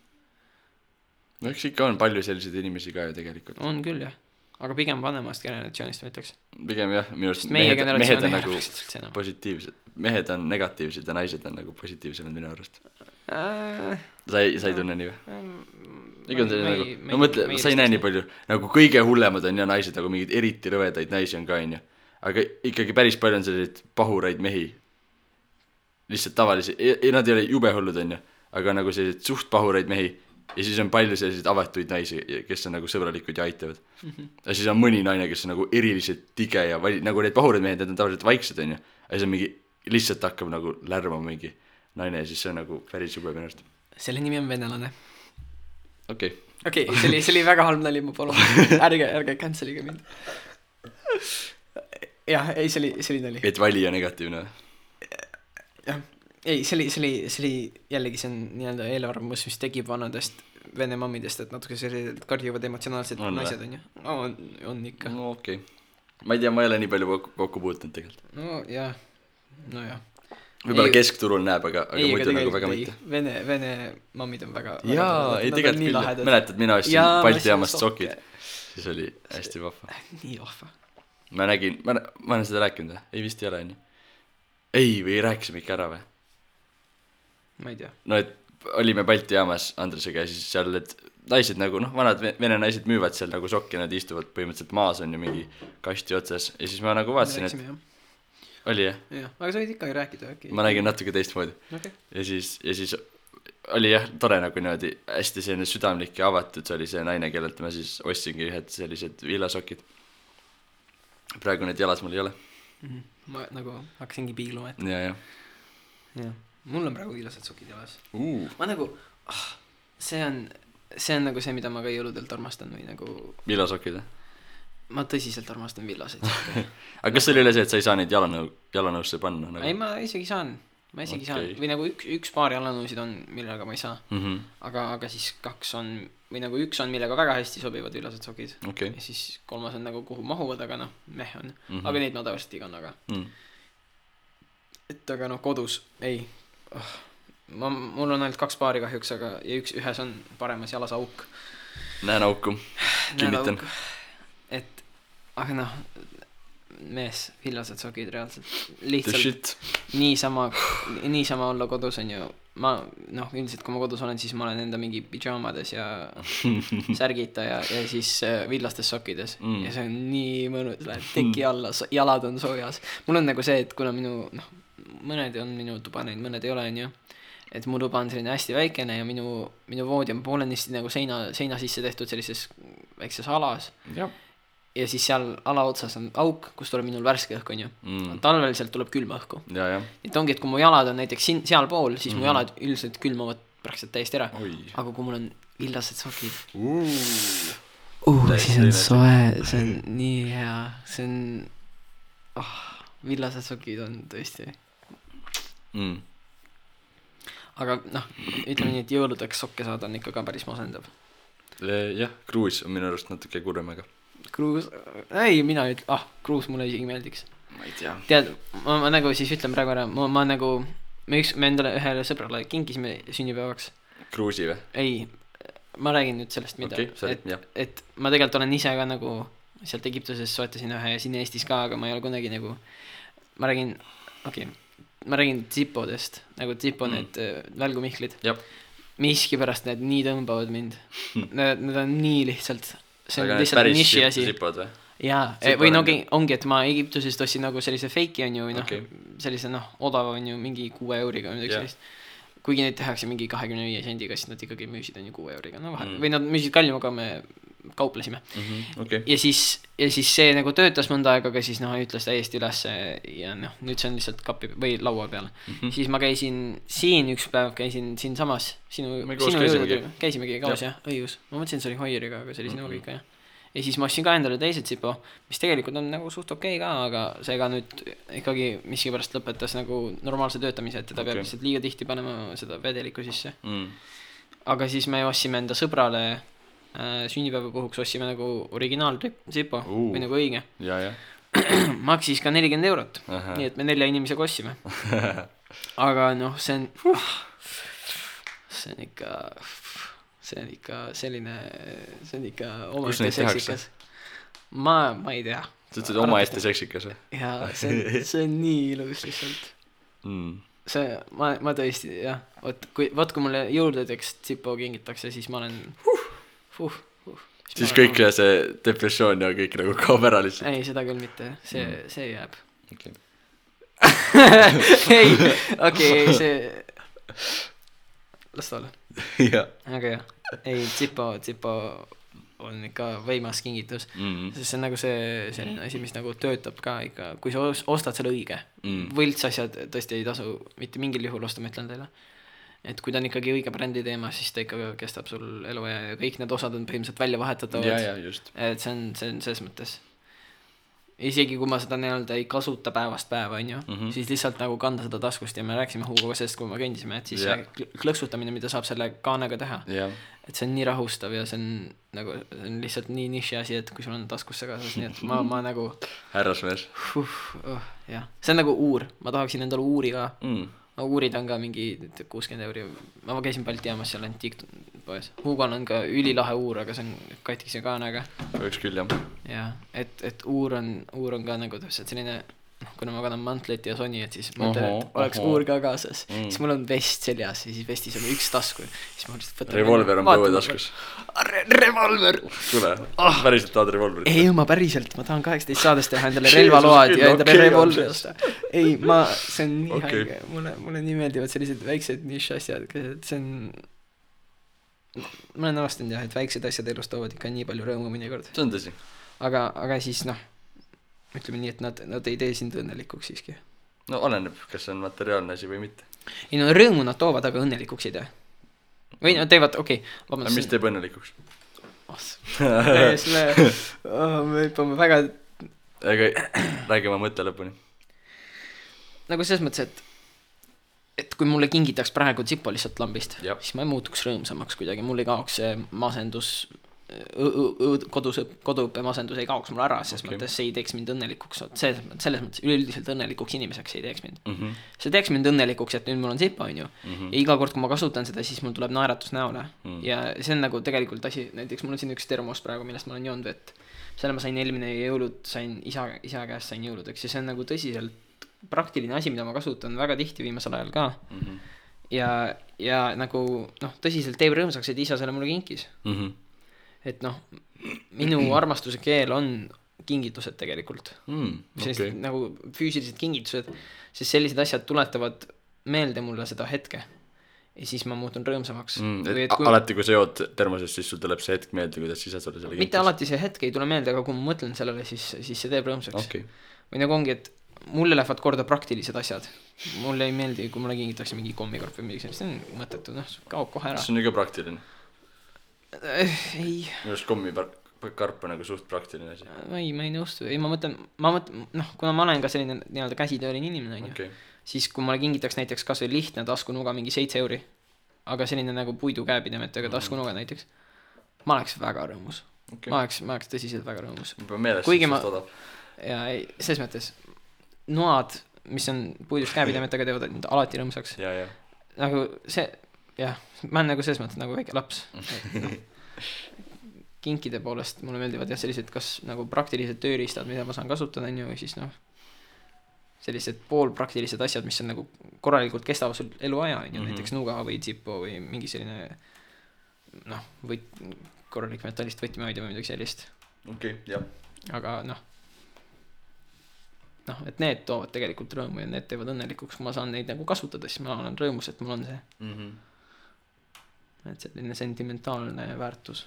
no eks ikka on palju selliseid inimesi ka ju tegelikult on küll jah aga pigem vanemast generatsioonist ma ütleks pigem jah minu arust mehed on nagu positiivsed mehed on negatiivsed ja naised on nagu positiivsemad minu arust sa ei tunne nii või? Nagu, no mõtle, sa ei näe nii palju nagu kõige hullemad on ja naised nagu mingid eriti rõvedaid naisi on ka on ju aga ikkagi päris palju on selliseid pahuraid mehi lihtsalt tavalisi nad ei ole jube hullud on ju aga nagu selliseid suht pahuraid mehi ja siis on palju selliseid avatuid naisi kes on nagu sõbralikud ja aitavad ja siis on mõni naine kes on nagu eriliselt tige ja nagu need pahuraid mehed need on tavaliselt vaiksed on ju ja siis on mingi lihtsalt hakkab nagu lärmama mingi naine ja siis see on nagu päris jube minu arust selle nimi on venelane okei, see oli väga halb nali, ma palun. Ärge cancel'iga mind. Jah, ei, see oli nali. Et valija negatiivne. Jah, ei, see oli jällegi see on nii-öelda eelarvamus, mis tegib vanadest vene mammidest, et natuke sellised karjuvad emotsionaalsed naised on ju. On ikka. No okei. Ma ei tea, ma ei ole nii palju kokku puutunud tegelikult. No jah, nojah. Võib-olla keskturul näeb, aga muidu nagu väga mitte. Vene mammid on väga jaa, ei tegelikult küll. Mäletad, mina ostsin Balti jaamast sokid. Siis oli hästi vahva. Nii vahva. Ma nägin, ma olen seda rääkinud või? Ei vist ei ole nii. Ei, või rääkisime ikka ära või? Ma ei tea. No, et olime Balti jaamas Andresega ja siis seal, et naised nagu, vanad vene naised müüvad seal nagu sokki, nad istuvad põhimõtteliselt maas on ju mingi kasti otsas ja siis ma nagu vaatasin, et oli jah? Jah, aga sa võid ikkagi rääkida äkki. Ma nägin natuke teistmoodi. Okay. Ja siis oli jah, tore nagu niimoodi hästi selline südamlik ja avatud, see oli see naine, kellelt ma siis ostsingi ühed sellised villasokid. Praegu need jalas mul ei ole. Ma nagu hakkasingi piigluma, et ja. Mul on praegu viilased sokid jalas. Ma nagu, see on nagu see, mida ma ka jõuludelt armastan või nagu villasokid või? Ma tõsiselt armastan villaseid. Aga kas oli üle see, et sa ei saa neid jalanõusse panna? Nagu? Ei, ma isegi saan. Või nagu üks paar jalanõusid on, millega ma ei saa. Aga siis kaks on, või nagu üks on, millega väga hästi sobivad villased sokid. Okay. Ja siis kolmas on nagu kuhu mahuvad, aga meh on. Aga neid ma tavaliselt igan, aga. Et aga kodus, ei. Mul on ainult 2 paari kahjuks, aga ja ühes on paremas jalas auk. Näen auku. Kinnitan. Aga mees, villased sokid reaalselt lihtsalt niisama olla kodus on ju ma üldiselt kui ma kodus olen, siis ma olen enda mingi pidžaamades ja särgita ja siis villastes sokkides ja see on nii mõnus, lähed teki alla, jalad on soojas. Mul on nagu see, et kuna mõned on minu tuba neid, mõned ei ole on ju, et mu tuba on selline hästi väikene ja minu voodi on poolenisti nagu seina sisse tehtud sellises väikses alas ja siis seal alaotsas on auk, kus tuleb minul värske õhk on ju. Talvel sealt tuleb külma õhku. Et ongi, et kui mu jalad on näiteks seal pool, siis mu jalad üldiselt külmavad praktiliselt täiesti ära. Aga kui mul on villased sokid siis on soe, see on nii hea, see on villased sokid on tõesti aga ütleme nii, et jõuludeks sokke saada on ikka ka päris masendav. Jah, kruus on minu arust natuke kurvemaga. Kruus, ei, mina kruus mulle isegi meeldiks. Ma ei tea. Tead, ma nagu siis ütlen praegu ära, ma nagu, me endale ühele sõbrale kinkisime sünnipäevaks. Kruusi või? Ei, ma räägin nüüd sellest, mida, et ma tegelikult olen ise ka nagu sealt Egiptuses soetasin ühe ja siin Eestis ka, aga ma ei ole kunagi nagu, ma räägin Zipodest, nagu Zipo need välgumihklid. Miski pärast need nii tõmbavad mind. Need on nii lihtsalt see on lihtsalt niši asi. Jaa, või ongi, et ma Egiptusest ostsin nagu sellise feiki on ju, või sellise odava on ju mingi 6 euriga või midagi sellist. Kuigi neid tehakse mingi 25 sendiga, siis nad ikkagi müüsid on ju 6 euriga. Või nad müüsid kallim, aga me kauplesime. Ja siis see nagu töötas mõnda aega, aga siis ütles täiesti üles ja nüüd see on lihtsalt kapi või laua peal. Siis ma käisin siin üks päev, käisin siin samas sinu käisimegi kaos jah, õigus. Ma mõtlesin, see oli Hoieriga, aga see oli sinuga ikka jah. Ja siis ma ostsin ka endale teised Zipo, mis tegelikult on nagu suht okei ka, aga see ka nüüd ikkagi miskipärast lõpetas nagu normaalse töötamise, et teda peab lihtsalt liiga tihti panema seda vedeliku sisse. Aga siis me ostsime enda sõbrale sünnipäeva puhuks ostsime nagu originaal Zipo või nagu õige. Maksis ka 40 €. Nii et me 4 inimesega ostsime. Aga see on ikka selline, see on ikka omaette seksikas. Ma ei tea. Sa ütlesid omaette seksikas või? Jaa, see on nii ilus lihtsalt. See, ma tõesti, jah. Kui mulle jõuludeks Zipo kingitakse, siis ma olen siis kõik see depressioon ja kõik nagu kaob ära lihtsalt. Ei, seda küll mitte, see jääb. Ei, see las ta olla. Aga jah, ei, Zipo on ikka võimas kingitus, sest see on nagu selline asi, mis nagu töötab ka ikka, kui sa ostad selle õige. Võlts asjad tõesti ei tasu mitte mingil juhul osta, ma ütlen teile. Et kui ta on ikkagi õige brändi teema, siis ta ikka kestab sul elu ja kõik need osad on põhimõtteliselt välja vahetatavad. Ja, just. Et see on selles mõttes. isegi kui ma seda nii-öelda ei kasuta päevast päeva, on ju, siis lihtsalt nagu kanda seda taskust ja me rääkisime Hugoga sellest, kui me kõndisime, et siis see klõksutamine, mida saab selle kaanega teha, et see on nii rahustav ja see on nagu, see on lihtsalt nii niši asi, et kui sul on taskusse kaasas, nii et ma nagu härrasmees. Jah, see on nagu uur, ma tahaksin endale uuri ka. No uurid on ka mingi 60 euri, ma käisin Balti jaamas seal antiikpoes. Hugon on ka ülilahe uur, aga see on katkise kaanaga. Võiks küll, jah. Ja, et uur on ka nagu täpselt selline, kuna ma kannan mantlit ja soni, et siis mõtlen, et oleks uur ka kaasas. Siis mul on vest seljas ja siis vestis on üks tasku. Revolver on põue taskus. Revolver! Tule, päriselt tahad revolverit? Ei, ma päriselt, ma tahan 18 saadest teha endale relvaload ja endale revolveri osta. Ei, see on nii haige, mulle nii meeldivad sellised väiksed niš asjad, et see on, ma olen avastanud jah, et väiksed asjad elus toovad ikka nii palju rõõmu mõnikord. See on tõsi. Aga siis ütleme nii, et nad ei tee sind õnnelikuks siiski. No oleneb, kas see on materiaalne asi või mitte. Ei no rõõmu nad toovad, aga õnnelikuks ei tee. Või nad teevad, okei. Aga mis teeb õnnelikuks? Me hüppame väga... Aga räägi oma mõtte lõpuni. Nagu selles mõttes, et kui mulle kingitaks praegu Zippo lihtsalt lambist, siis ma ei muutuks rõõmsamaks kuidagi. Mul ei kaoks see masendus, koduõppe masendus ei kaoks mul ära, sest mõttes see ei teeks mind õnnelikuks. Selles mõttes üleüldiselt õnnelikuks inimeseks ei teeks mind. See teeks mind õnnelikuks, et nüüd mul on Zippo, on ju. Ja iga kord, kui ma kasutan seda, siis mul tuleb naeratus näole. Ja see on nagu tegelikult asi, näiteks mul on siin üks termos praegu, millest ma olen joonud vett. Selle ma sain eelmine jõulud, sain isa käest sain jõuludeks ja see on nagu tõsiselt praktiline asi, mida ma kasutan väga tihti viimasel ajal ka. Ja nagu tõsiselt teeb rõõmsaks, et isa selle mulle kinkis. Et minu armastuse keel on kingitused tegelikult. Sellised nagu füüsilised kingitused, sest sellised asjad tuletavad meelde mulle seda hetke. Ja siis ma muutun rõõmsamaks. Alati, kui sa jood termosest, siis sul tuleb see hetk meelde, kuidas isa sulle selle kinkis. Mitte alati see hetk ei tule meelde, aga kui ma mõtlen sellele, siis see teeb rõõmsaks. Või nagu ongi, et mulle lähevad korda praktilised asjad. Mulle ei meeldi, kui mulle kingitakse mingi kommikarp või mingi, see on mõttetu, kaob kohe ära. See on ju ka praktiline. Ei. Minu arust kommikarp on nagu suht praktiline asi. Ei, ma ei nõustu. Ei, ma mõtlen, kuna ma olen ka selline nii-öelda käsitööline inimene, on ju, siis kui mulle kingitaks näiteks kas või lihtne taskunuga mingi 7 euri, aga selline nagu puidu käepidemetega taskunuga näiteks, ma oleks väga rõõmus. Ma oleks tõsiselt väga rõõmus. Kuigi ma, ja ei, selles mõttes, noad, mis on puidust käepidemetega, teevad alati rõõmsaks. Nagu see, jah, ma olen nagu selles mõttes nagu väike laps. Kinkide poolest mulle meeldivad jah sellised kas nagu praktilised tööriistad, mida ma saan kasutada, on ju, või siis sellised poolpraktilised asjad, mis on nagu korralikult kestavad sul eluaja, on ju, näiteks nuga või Zippo või mingi selline korralik metallist võtmehoidja või midagi sellist. Jah. Aga et need toovad tegelikult rõõmu ja need teevad õnnelikuks, kui ma saan neid nagu kasutada, siis ma olen rõõmus, et mul on see. Et selline sentimentaalne väärtus.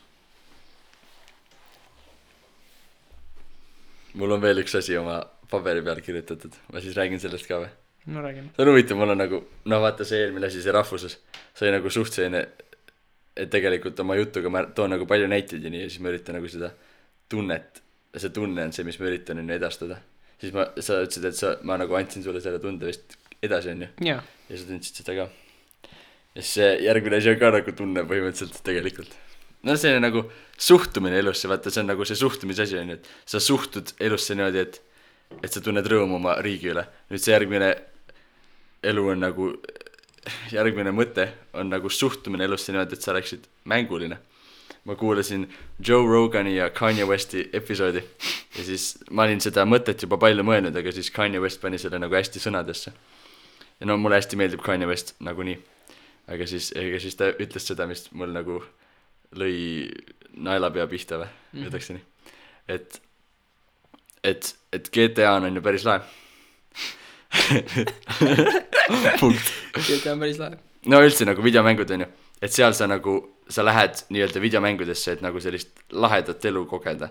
Mul on veel üks asi oma paberi peal kirjutatud. Ma siis räägin sellest ka või? No räägime. See on huvitav, mul on nagu, vaata see eelmine asi, see rahvuses. See nagu suht selline, et tegelikult oma jutuga ma toon nagu palju näiteid ja nii, ja siis ma üritan nagu seda tunnet, see tunne on see, mis ma üritan edastada. Siis sa ütlesid, et ma nagu andsin sulle selle tunde vist edasi, on ju? Ja sa tundsid seda ka. Ja see järgmine asi on ka nagu tunne põhimõtteliselt tegelikult. See on nagu suhtumine elusse, vaata, see on nagu see suhtumisasi on, et sa suhtud elusse niimoodi, et sa tunned rõõmu oma riigi üle. Nüüd see järgmine elu on nagu, järgmine mõte on nagu suhtumine elusse niimoodi, et sa oleksid mänguline. Ma kuulasin Joe Rogani ja Kanye Westi episoodi ja siis ma olin seda mõtet juba palju mõelnud, aga siis Kanye West pani selle nagu hästi sõnadesse. Ja mulle hästi meeldib Kanye West nagu nii. Aga siis ta ütles seda, mis mul nagu lõi naelapea pihta või, ütleks nii. Et GTA on ju päris lahe. Punkt. GTA on päris lahe. No üldse nagu videomängud on ju. Et seal sa lähed nii-öelda videomängudesse, et nagu sellist lahedat elu kogeda.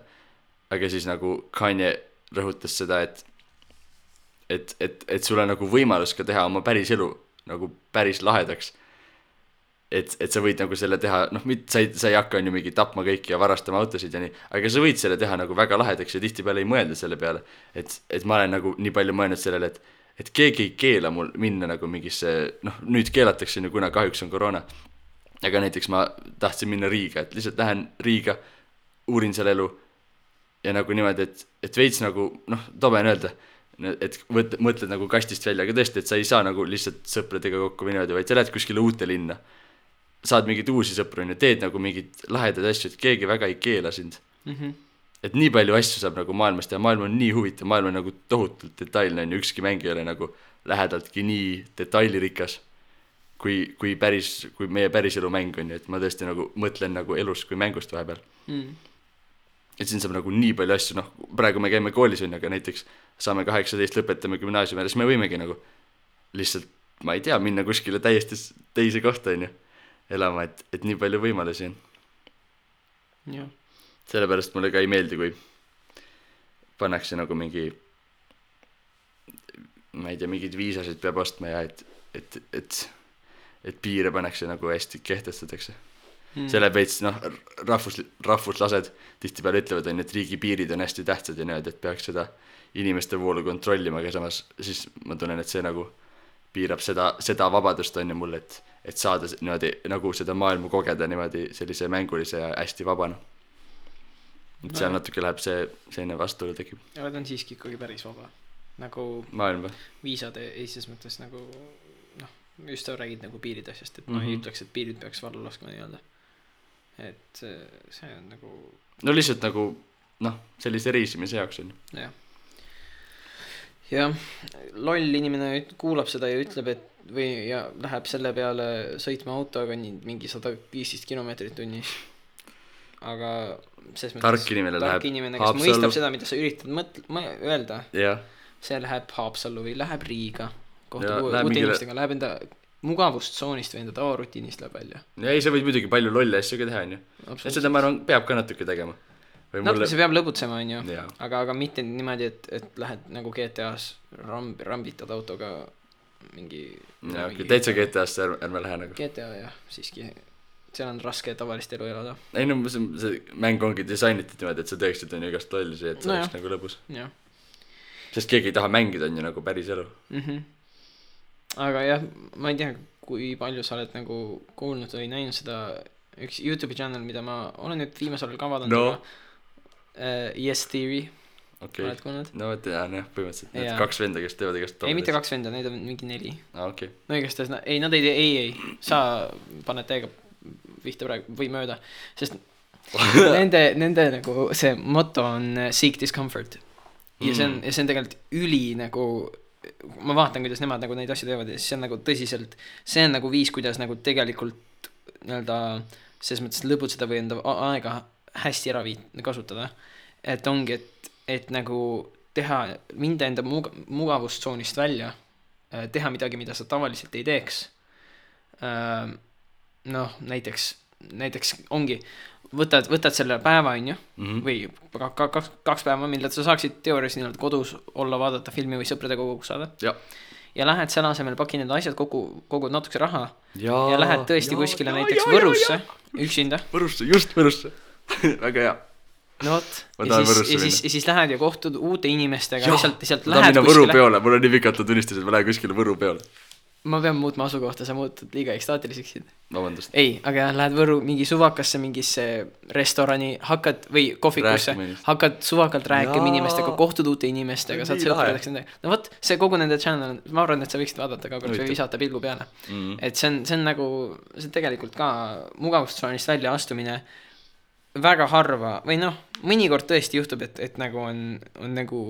Aga siis nagu Kanye rõhutas seda, et sul on nagu võimalus ka teha oma päris elu nagu päris lahedaks. et sa võid nagu selle teha, noh, sa ei hakka on ju mingi tapma kõiki ja varastama autosid ja nii, aga sa võid selle teha nagu väga lahedaks ja tihtipeale ei mõelda selle peale, et ma olen nagu nii palju mõelnud sellele, et keegi ei keela mul minna nagu mingisse, noh, nüüd keelatakse ju, kuna kahjuks on koroona, aga näiteks ma tahtsin minna Riiga, et lihtsalt lähen Riiga, uurin seal elu ja nagu niimoodi, et veits nagu, noh, tobe on öelda, et mõtled nagu kastist välja, aga tõesti, et sa ei saa nagu lihtsalt sõpradega kokku või niimoodi, vaid sa lähed kuskile uute linna, saad mingeid uusi sõpru ja teed nagu mingid lahedad asju, et keegi väga ei keela sind. Et nii palju asju saab nagu maailmast ja maailm on nii huvitav, maailm on nagu tohutult detailne, on ju, ükski mäng ei ole nagu lähedaltki nii detailirikas kui meie päriselu mäng on ju, et ma tõesti nagu mõtlen nagu elust kui mängust vahepeal. Et siin saab nagu nii palju asju, noh, praegu me käime koolis on, aga näiteks saame 18, lõpetame gümnaasiumi ja siis me võimegi nagu lihtsalt, ma ei tea, minna kuskile täiesti teise kohta on ju, elama, et nii palju võimalusi on. Jah. Sellepärast mulle ka ei meeldi, kui pannakse nagu mingi, ma ei tea, mingid viisasid peab ostma ja et piire pannakse nagu hästi kehtestatakse. Selle veits, noh, rahvuslased tihtipeale ütlevad, et riigi piirid on hästi tähtsad ja need, et peaks seda inimeste voolu kontrollima, aga samas siis ma tunnen, et see nagu piirab seda vabadust on ju mul, et saada niimoodi nagu seda maailma kogeda niimoodi sellise mängulise ja hästi vabana. Et seal natuke läheb selline vastuolu tekib. Ja ta on siiski ikkagi päris vaba. Nagu maailm või? Viisade esises mõttes nagu, noh, just sa räägid nagu piirid asjast, et ma ei ütleks, et piirid peaks vallu laskma nii-öelda. Et see on nagu... No lihtsalt nagu, noh, sellise reisimise jaoks on. Jah. Ja loll inimene kuulab seda ja ütleb, et ja läheb selle peale sõitma autoga mingi 115 kilomeetrit tunnis. Aga tark inimene läheb kes mõistab seda, mida sa üritad öelda, see läheb Haapsallu või läheb Riiga kohtub uute inimestega, läheb enda mugavustsoonist või enda tavarutiinist läheb välja. Ja ei, sa võid muidugi palju lolle asju ka teha, on ju. Ja seda ma arvan, peab ka natuke tegema. Natuke see peab lõbutsema, on ju. Aga mitte niimoodi, et lähed nagu GTA-s rambitad autoga mingi... Täitsa GTA-s ärme lähe nagu. GTA, jah, siiski... seal on raske tavalist elu elada. Ei no see mäng ongi disainitud niimoodi, et sa teeksid on ju igast lollisi, et see oleks nagu lõbus. Sest keegi ei taha mängida on ju nagu päris elu. Aga jah, ma ei tea, kui palju sa oled nagu kuulnud või näinud seda üks YouTube'i channel, mida ma olen nüüd viimasel ka vaadanud Yes Theory. Oled kuulnud? No tean jah, põhimõtteliselt need 2 venda, kes teevad igast ei, mitte 2 venda, neid on mingi 4. Okay. No igast ei, nad ei sa paned täiega vihta praegu või mööda, sest nende nagu see motto on seek discomfort ja see on tegelikult üli nagu, ma vaatan, kuidas nemad nagu neid asju teevad ja see on nagu tõsiselt, see on nagu viis, kuidas nagu tegelikult nii-öelda selles mõttes lõbutseda või enda aega hästi ära kasutada, et ongi, et nagu teha, minda enda mugavustsoonist välja, teha midagi, mida sa tavaliselt ei teeks. Noh, näiteks ongi, võtad selle päeva, on ju, või 2 päeva, mille sa saaksid teoorias nii-öelda kodus olla, vaadata filmi või sõpradega kokku saada. Ja lähed selle asemel, paki need asjad kogud natukese raha ja lähed tõesti kuskile näiteks Võrusse, üksinda. Just Võrusse. Väga hea. No vot, ja siis lähed ja kohtud uute inimestega, lihtsalt lähed kuskile. Võru peole, mul on nii pikalt tunnistus, et ma lähen kuskile Võru peole. Ma pean muutma asukohta, sa muutud liiga ekstaatiliseks. Vabandust. Ei, aga lähed Võru mingi suvakasse mingisse restorani, hakkad või kohvikusse, hakkad suvakalt rääkima inimestega, kohtud uute inimestega, saad sõpradeks nendega. No võt, see kogu nende channel, ma arvan, et sa võiksid vaadata ka kord või visata pilgu peale. Et see on nagu, see tegelikult ka mugavustsoonist välja astumine väga harva, või noh, mõnikord tõesti juhtub, et nagu on nagu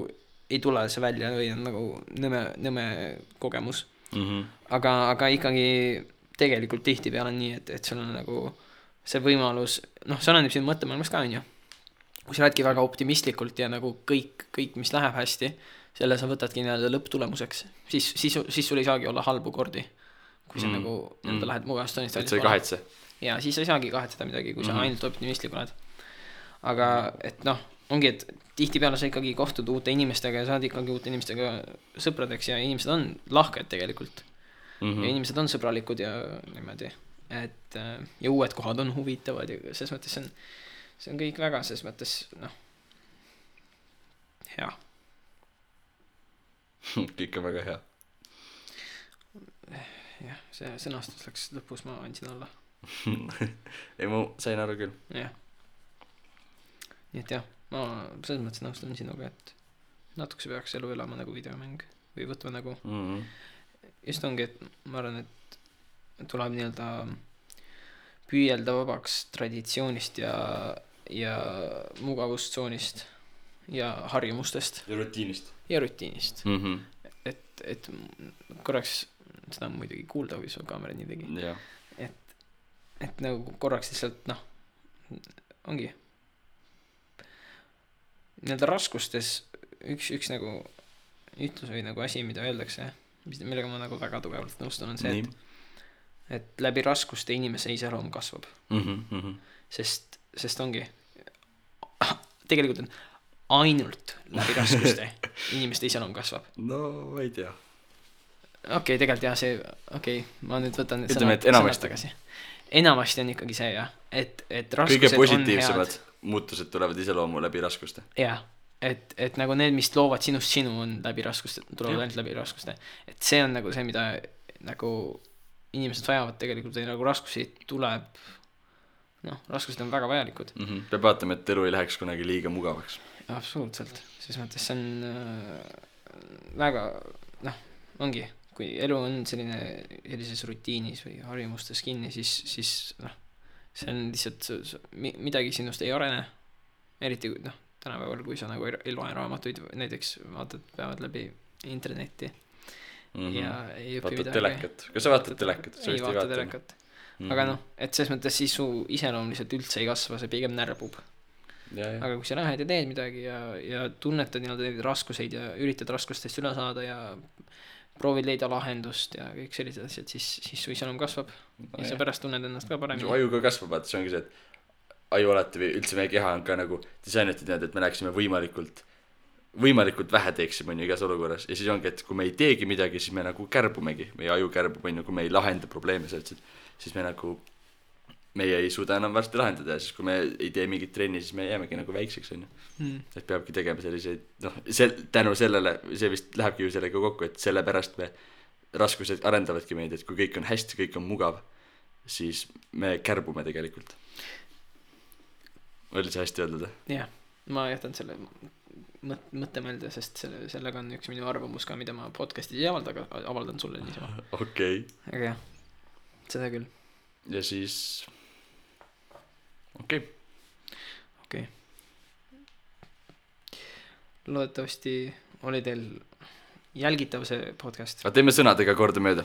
ei tule see välja või on nagu nõme kogemus. Aga ikkagi tegelikult tihti peale on nii, et sul on nagu see võimalus, noh, see on siin mõttemaailmas ka, on ju. Kui sa räädki väga optimistlikult ja nagu kõik, mis läheb hästi, selle sa võtadki nii-öelda lõpptulemuseks, siis sul ei saagi olla halbu kordi, kui sa nagu lähed mugavustsoonist välja. Et sa ei kahetse. Ja siis ei saagi kahetseda midagi, kui sa ainult optimistlik oled. Aga et noh, ongi, et tihti peale sa ikkagi kohtud uute inimestega ja saad ikkagi uute inimestega sõpradeks ja inimesed on lahked tegelikult. Ja inimesed on sõbralikud ja niimoodi. et ja uued kohad on huvitavad ja selles mõttes see on kõik väga selles mõttes noh hea. kõik on väga hea. Jah, see sõnastus läks lõpus, ma andsin alla. ei, ma sain aru küll. Jah. Nii et jah, ma selles mõttes nõustun sinuga, et natukese peaks elu elama nagu videomäng või võtma nagu just ongi, et ma arvan, et tuleb nii-öelda püüelda vabaks traditsioonist ja mugavustsoonist ja harjumustest ja rutiinist et korraks seda muidugi kuulda, kui sul kaamera nii tegi et nagu korraks lihtsalt noh ongi nii-öelda raskustes üks nagu ütlus või nagu asi, mida öeldakse, millega ma nagu väga tugevalt nõustun, on see, et läbi raskuste inimese iseloom kasvab. Sest ongi tegelikult on ainult läbi raskuste inimeste iseloom kasvab. No ma ei tea. Okei, tegelikult jah, see ma nüüd võtan ütleme, et enamasti. Enamasti on ikkagi see jah, et raskused kõige positiivsemad muutused tulevad iseloomu läbi raskuste. Jah, et nagu need, mis loovad sinust sinu, on läbi raskuste, tulevad ainult läbi raskuste. Et see on nagu see, mida nagu inimesed vajavad tegelikult või nagu raskusi tuleb, raskused on väga vajalikud. Peab vaatama, et elu ei läheks kunagi liiga mugavaks. Absoluutselt, selles mõttes see on väga, ongi, kui elu on sellises rutiinis või harjumustes kinni, siis see on lihtsalt midagi sinust ei arene, eriti tänapäeval, kui sa nagu ei loe raamatuid, näiteks peavad läbi internetti ja ei õpi midagi. Telekat. Kas sa vaatad telekat? Ei vaata telekat. Aga et selles mõttes siis su iseloom lihtsalt üldse ei kasva, see pigem närbub. Aga kui sa lähed ja teed midagi ja tunnetad neid raskuseid ja üritad raskustest üle saada ja proovid leida lahendust ja kõik sellised asjad, siis su iseloom kasvab ja sa pärast tunned ennast ka paremini. Su aju ka kasvab, vaata, see ongi see, et aju alati või üldse meie keha on ka nagu disainitud nii, et me läheksime võimalikult vähe teeksime igas olukorras ja siis ongi, et kui me ei teegi midagi, siis me nagu kärbumegi, meie aju kärbub, kui me ei lahenda probleeme sellest, siis meie ei suuda enam varsti lahendada ja siis kui me ei tee mingit trenni, siis me jäämegi nagu väikseks et peabki tegema selliseid tänu sellele, see vist lähebki ju sellega kokku, et sellepärast me raskused arendavadki meid, et kui kõik on hästi, kõik on mugav, siis me kärbume tegelikult. Oli see hästi öeldud? Jah, ma jätan selle mõttemelde, sest sellega on üks minu arvamus ka, mida ma podcastis ei avalda, aga avaldan sulle niisama. Okei. Aga jah, seda küll. Ja siis okei. Loodetavasti oli teil jälgitav see podcast. Aga teeme sõnadega korda mööda.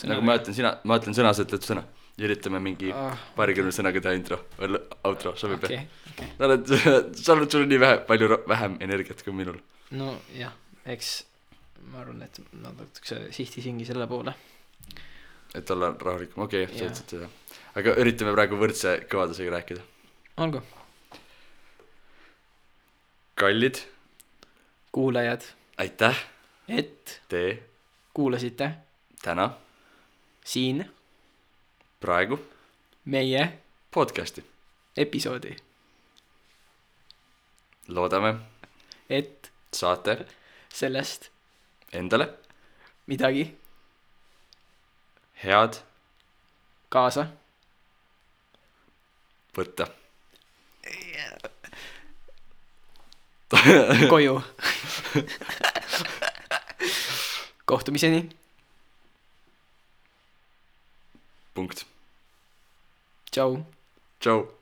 Nagu ma ütlen sõna, sa ütled sõna. Ja üritame mingi paarikümne sõnaga teha intro või outro, sobib okay. Sa oled sul nii vähem energiat kui minul. No jah, eks ma arvan, et natukese sihtisingi selle poole. Et olla rahulikum, okei, sa ütlesid seda. Aga üritame praegu võrdse kõvadusega rääkida. Olgu. Kallid kuulajad, aitäh, et te kuulasite täna siin praegu meie podcasti episoodi. Loodame, et saate sellest endale midagi head kaasa võtta. Koju. Kohtumiseni. Punkt. Tšau. Tšau.